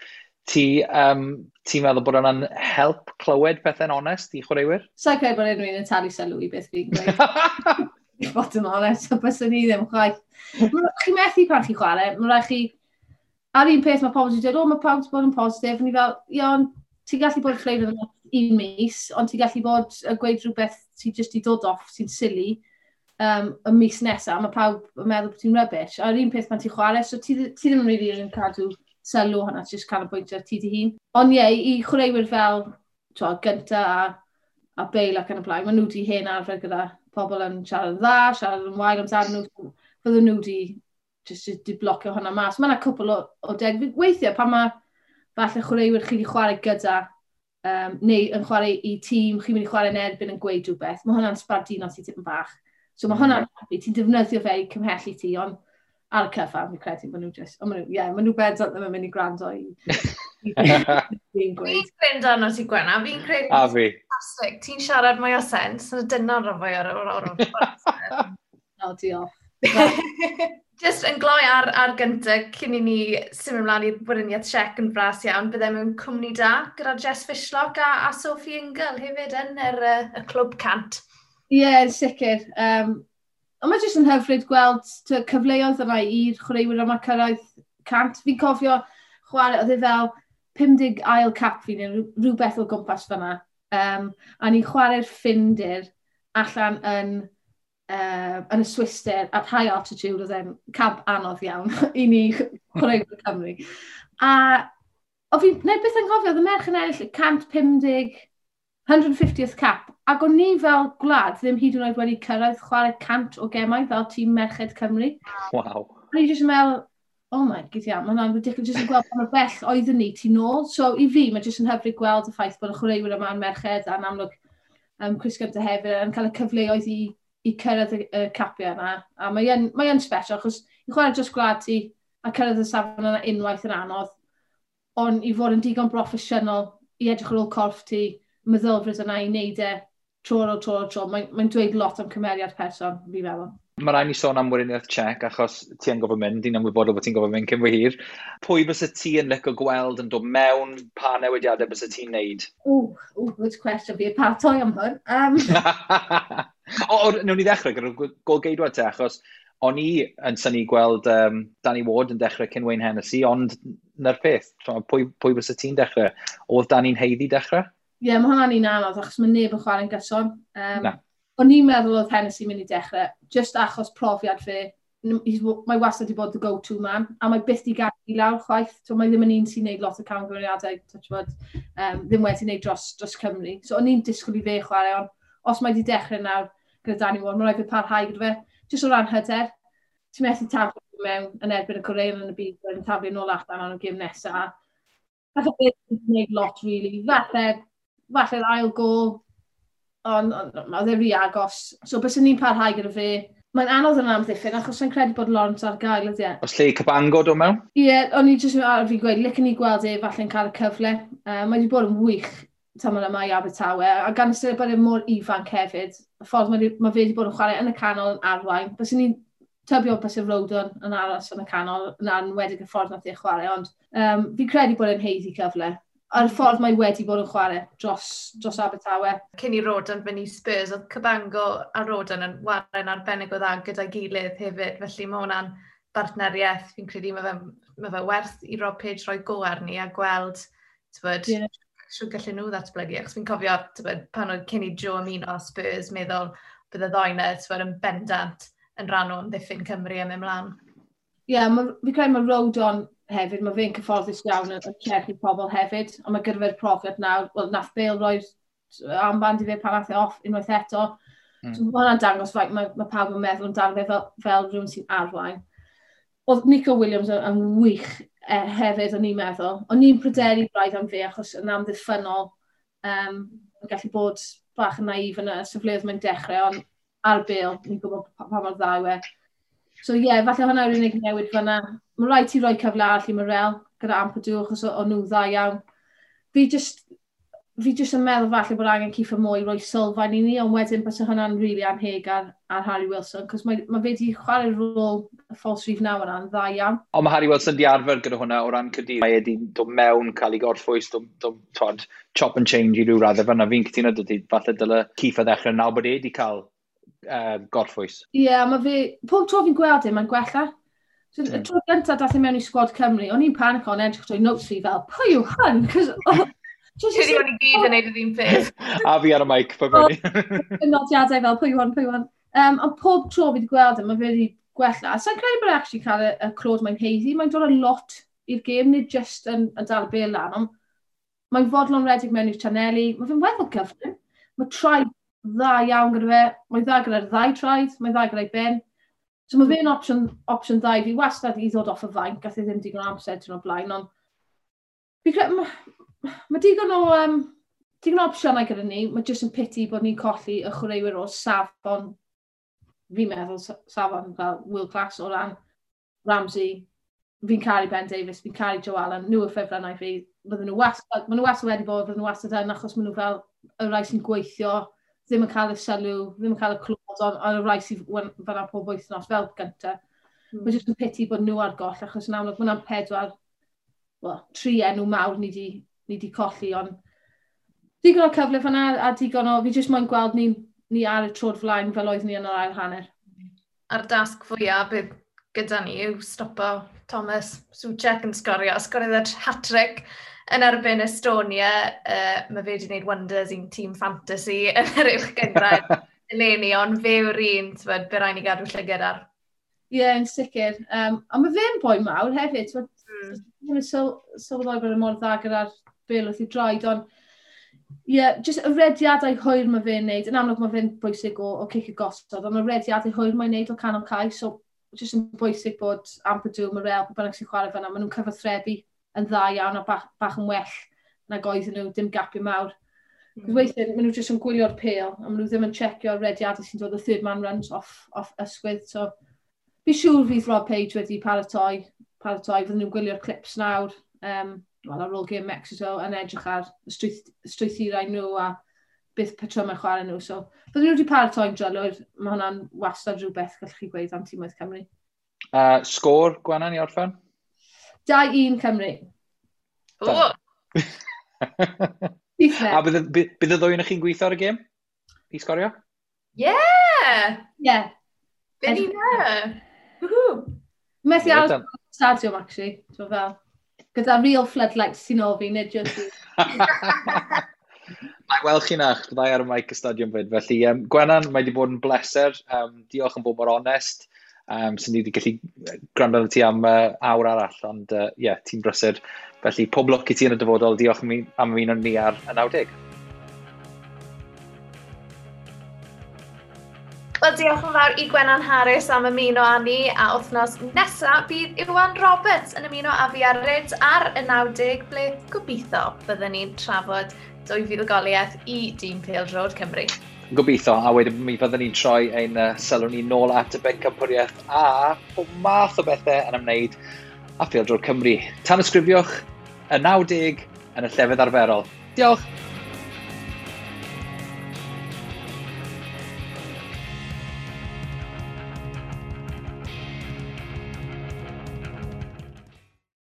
Ti'n meddwl bod hwnna'n help clywed pethau'n onest i chwaraewyr? Sa'n credu bod unrhyw un yn talu sylw i beth fi'n gweud. I fod yn onest, so byswn ni ddim chwaith. Chi methu pan chi chwarae, mae rhaid chi. A'r un peth mae pobl wedi dweud, "O, mae pawb wedi bod yn positif," a ni fel, ie, ond ti'n gallu bod yn flavour yn un mis, ond ti'n gallu bod yn gweud rhywbeth sy'n just i dod off, sy'n silly, y mis nesaf, mae pawb yn meddwl bod ti'n rubbish. A'r un peth pan ti'n chwarae, so ti ddim yn really yn cadw sylw hwnna, ti'n just canolbwyntio ar ti dy hun. Ond ie, i chwaraewyr fel, t'wo, Gunter a Bale ac yn y blaen, maen nhw wedi hen arfer gyda pobl yn siarad yn dda, siarad yn wael amdano nhw, fydden nhw wedi just di blocio hwnna mas. Mae yna cwpl o deg. Weithiau pan mae falle chwaraewyr chi wedi chwarae gyda, neu yn chwarae i tîm, chi'n mynd i chwarae yn erbyn yn gweud rhywbeth, mae hwnna'n sbarduno ti tipyn bach. So mae hwnna'n happy, ti'n defnyddio fe i cymhellu ti, ond ar y cyfan, fi'n credu bod nhw just, ond maen nhw, ie, maen nhw bendant ddim yn mynd i gwrando i fi'n gweud. Fi'n credu arno ti, Gwenna, fi'n credu A fi. Fantastic. Ti'n siarad mwy o sens, na dyna'n rhan fwy o'r O, diolch. Just yn gloi ar gyntaf, cyn i ni symud ymlaen i'r Weriniaeth Tsiec yn fras iawn, byddai mewn cwmni da gyda Jess Fishlock a Sophie Ingle hefyd yn y clwb 100. Ie, yeah, sicr. Ond mae jyst yn hyfryd gweld cyfleoedd yna i'r chwaraewyr yma cyrraedd 100. Fi'n cofio chwarae, oedd e fel 50 ail cap fi neu rhywbeth o gwmpas fyna. A ni'n chwarae'r Ffindir allan yn yn y Swister at high altitude, oedd e'n camp anodd iawn i ni chwaraewyr Cymru. A o fi, neu beth yn cofio, oedd y merch yn ennill 150, 150th cap, ac o'n ni fel gwlad ddim hyd yn oed wedi cyrraedd chwarae 100 o gemau fel tîm Merched Cymru. Waw. A ni jyst yn meddwl, oh my god, yeah, mae hwnna'n ridiculous, jyst yn gweld pa mor bell oeddwn ni tu nôl. So i fi, mae jyst yn hyfryd gweld y ffaith bod y chwaraewyr yma'n merched a'n amlwg Chris Gunter hefyd yn cael y cyfleoedd i cyrraedd y capiau yna. A mae'n mae special, achos i chwarae dros gwlad ti a cyrraedd y safon yna unwaith yn anodd, ond i fod yn digon broffesiynol i edrych ar ôl corff ti, meddylfryd yna i wneud e tro ar ôl tro ar ôl tro, mae'n dweud lot am cymeriad person, fi'n meddwl. Mae rhaid ni sôn am Weriniaeth Czech, achos ti yn gofyn mynd, ti'n ymwybodol bod ti'n gofyn mynd cyn fy hir. Pwy bysa ti yn licio gweld yn dod mewn, pa newidiadau bysa ti'n neud? Ww, good question, fi paratoi am hwn. O, newn ni ddechrau gyda'r golgeidwad te, achos o'n i yn synnu gweld Danny Ward yn dechrau cyn Wayne Hennessy, ond na'r peth, pwy bysa ti'n dechrau? Oedd Danny'n haeddu dechrau? Ie, yeah, mae hwnna'n un anodd, achos mae neb yn chwarae'n gyson. Na. O'n i'n meddwl oedd Hennessy mynd i dechrau, just achos profiad fe. Mae wastad wedi bod the go-to man, a mae byth di gadw i lawr chwaith. So, mae ddim yn un sy'n neud lot o camgymeriadau, touch wood, ddim wedi neud dros Cymru. So o'n i'n disgwyl i fe chwarae, ond os mae wedi dechrau nawr gyda Danny Ward, mae'n rhaid fe parhau gyda fe. Just o ran hyder, ti'n methu taflu mewn yn erbyn y Corean yn y byd, yn taflu nôl allan am y gêm nesaf. Falle fe wedi gwneud lot, really. Falle'r ail gol, ond oedd e rhy agos. So, byswn ni'n parhau gyda fe. Mae'n anodd yn amddiffyn, achos sa'n credu bod Lawrence ar gael ydy e. Os lle i Cabango dod mewn? Ie, yeah, o'n i jyst ar fi gweud, licen i gweld e falle'n cael y cyfle. Mae wedi bod yn wych tymor yma i Abertawe, a gan ystyried bod e mor ifanc hefyd, y ffordd mae fe wedi bod yn chwarae yn y canol yn arwain. Byswn ni'n tybio bys y Rodon yn aros yn y canol, yn enwedig y ffordd nath e chwarae, ond fi'n credu bod e'n haeddu cyfle. A'r ffordd mae wedi bod yn chwarae dros Abertawe. Cyn i Rodon fynd i Spurs, oedd Cabango a Rodon yn chwarae'n arbennig o dda gyda'i gilydd hefyd, felly mae hwnna'n bartneriaeth. Fi'n credu mae fe werth i Rob Page roi go arni a gweld, t'bod, yeah, siwr gallen nhw ddatblygu. Achos fi'n cofio, t'bod, pan oedd cyn i Joe ymuno â Spurs, meddwl bydde ddoi 'na, t'bod, yn bendant yn rhan o amddiffyn Cymru am ymlaen. Ie, yeah, fi'n credu mae Rodon hefyd, mae fe'n cyfforddus iawn yn trechu pobl hefyd, ond mae gyda fe'r profiad nawr, wel, nath Bale roi'r armband i fe pan nath e off unwaith eto. So mae hwnna'n dangos faint mae pawb yn meddwl amdano fe fel rhywun sy'n arwain. Oedd Nico Williams yn wych hefyd, o'n i'n meddwl. O'n i'n pryderu braidd am fe achos yn amddiffynnol, yn gallu bod bach yn naif yn y safleoedd mae'n dechrau, ond ar Bale, ni'n gwybod pa mor dda yw e. So ie, yeah, falle hwnna yw'r unig newid fyna. Mae rhaid ti roi cyfle arall i Morrell gyda Ampadu, achos o'n nhw dda iawn. Fi just yn meddwl falle bod angen Kieffer Moore i roi sylfaen i ni, ond wedyn bys hwnna'n really anheg ar Harry Wilson, cos mae fe wedi chwarae rôl y false rhif 9 yna'n dda iawn. Ond mae Harry Wilson di arfer gyda hwnna o ran Caerdydd. Mae wedi dod mewn, cael ei gorffwys, dod, chop and change i ryw raddau fyna. Fi'n cytuno dydy, falle dyle Kieffer ddechrau nawr bod e wedi cael gorffwys. Ie, yeah, mae fe, pob tro fi'n gweld e, mae'n gwella. So, y tro gyntaf dath e mewn i sgwad Cymru, o'n i'n panico yn edrych trwy notes fi fel, "Pwy yw hwn?" Cos, Credu o'n i gyd yn neud yr un peth. A fi ar y mic, pa fyny. Nodiadau fel, "Pwy yw hwn, pwy yw hwn?" Ond pob tro fi wedi gweld e, mae fe wedi gwella. Sa'n credu bod e actually cael y clod mae'n haeddu. Mae'n dod â lot i'r gêm, nid just yn dal y bêl lan, ond mae'n fodlon redig mewn i'r chaneli. Mae fe'n weddol gyflym. Mae traed dda iawn gyda fe. Mae'n dda gyda'r ddau traed, mae'n dda gyda'i ben. So mae fe'n opsiwn dda i fi wastad i ddod off y fainc, gath e ddim digon o amser tyn o'r blaen, ond fi credu, mae digon o opsiynau gyda ni, mae jyst yn pity bod ni'n colli y chwaraewyr o safon, fi'n meddwl safon fel world class o ran Ramsey, fi'n caru Ben Davies, fi'n caru Joe Allen, nhw y ffefrynnau fi, bydden nhw wastad, maen nhw wastad wedi bod, bydden nhw wastad yn, achos maen nhw fel y rai sy'n gweithio, ddim yn cael y sylw, ddim yn cael y clod, ond y rai sy'n fan'na pob wythnos fel gynta. Mae jyst yn pity bod nhw ar goll, achos yn amlwg mae hwnna'n pedwar, well, tri enw mawr ni di colli, ond digon o cyfle fan'na a digon o, fi jyst moyn gweld ni ar y troed flaen fel oedd ni yn yr ail hanner. A'r dasg fwyaf bydd gyda ni yw stopo Thomas Soucek yn sgorio. Sgoriodd e hat-trick yn erbyn Estonia. Mae fe wedi gwneud wonders i'n tîm fantasy yn yr uwch gynghrair. Eleni, ond fe yw'r un, ti'n be rhaid ni gadw llygad ar. Ie, yeah, yn sicr. A mae fe'n boi mawr hefyd. Mae'n sylweddoli bod e mor dda gyda'r bêl wrth ei droed, ond ie, yeah, just y rediadau hwyr mae fe'n neud. Yn amlwg mae fe'n bwysig o cic y gosod, ond y rediadau hwyr mae'n neud o canol cae, so just yn bwysig bod Ampadu, Morel, pwy bynnag sy'n chwarae fan'na, maen nhw'n cyfathrebu yn dda iawn a bach yn well nag oedden nhw, dim gapiau mawr. Weithiau, maen nhw jyst yn gwylio'r pêl, a maen nhw ddim yn checio'r rediadau sy'n dod o third man runs off ysgwydd. So, fi siŵr fydd Rob Page wedi paratoi, fydden nhw'n gwylio'r clips nawr, well, ar ôl gêm Mexico, yn edrych ar y strwythurau nhw a beth patrymau chwarae nhw. So, fydden nhw wedi paratoi'n drylwyr, mae hwnna'n wastad rhywbeth gallwch chi gweud am tîmoedd Cymru. Sgôr, Gwenan, i orffen? 2-1 Cymru. O! A bydd y ddwy yn chi'n gweithio ar y gêm? I sgorio? Yeah! Yeah. Fe ni na! Woohoo! Methu aros yn stadiwm, actually. So fel, gyda real floodlights sy'n ôl fi, nid just. Mae weld chi na, byddai ar y mic y stadiwm fyd. Felly, Gwenan, mae wedi bod yn bleser. Diolch yn bod mor onest. Sy'n ni wedi gallu gwrando arno ti am awr arall, ond ie, yeah, ti'n brysur. Felly, pob lwc i ti yn y dyfodol. Diolch am ymuno ni ar y 90. Wel, diolch yn fawr i Gwenan Harris am ymuno â ni, a wythnos nesaf bydd Iwan Roberts yn ymuno â fi ar Ryd ar y 90, ble gobeithio byddwn ni'n trafod dwy fuddugoliaeth i dîm pêl-droed Cymru. Gobeithio, a wedyn mi fyddwn ni'n troi ein sylw ni nôl at y bencampwriaeth a pob math o bethau yn ymwneud â phêl-droed Cymru. Tanysgrifiwch y 90 yn y llefydd arferol. Diolch!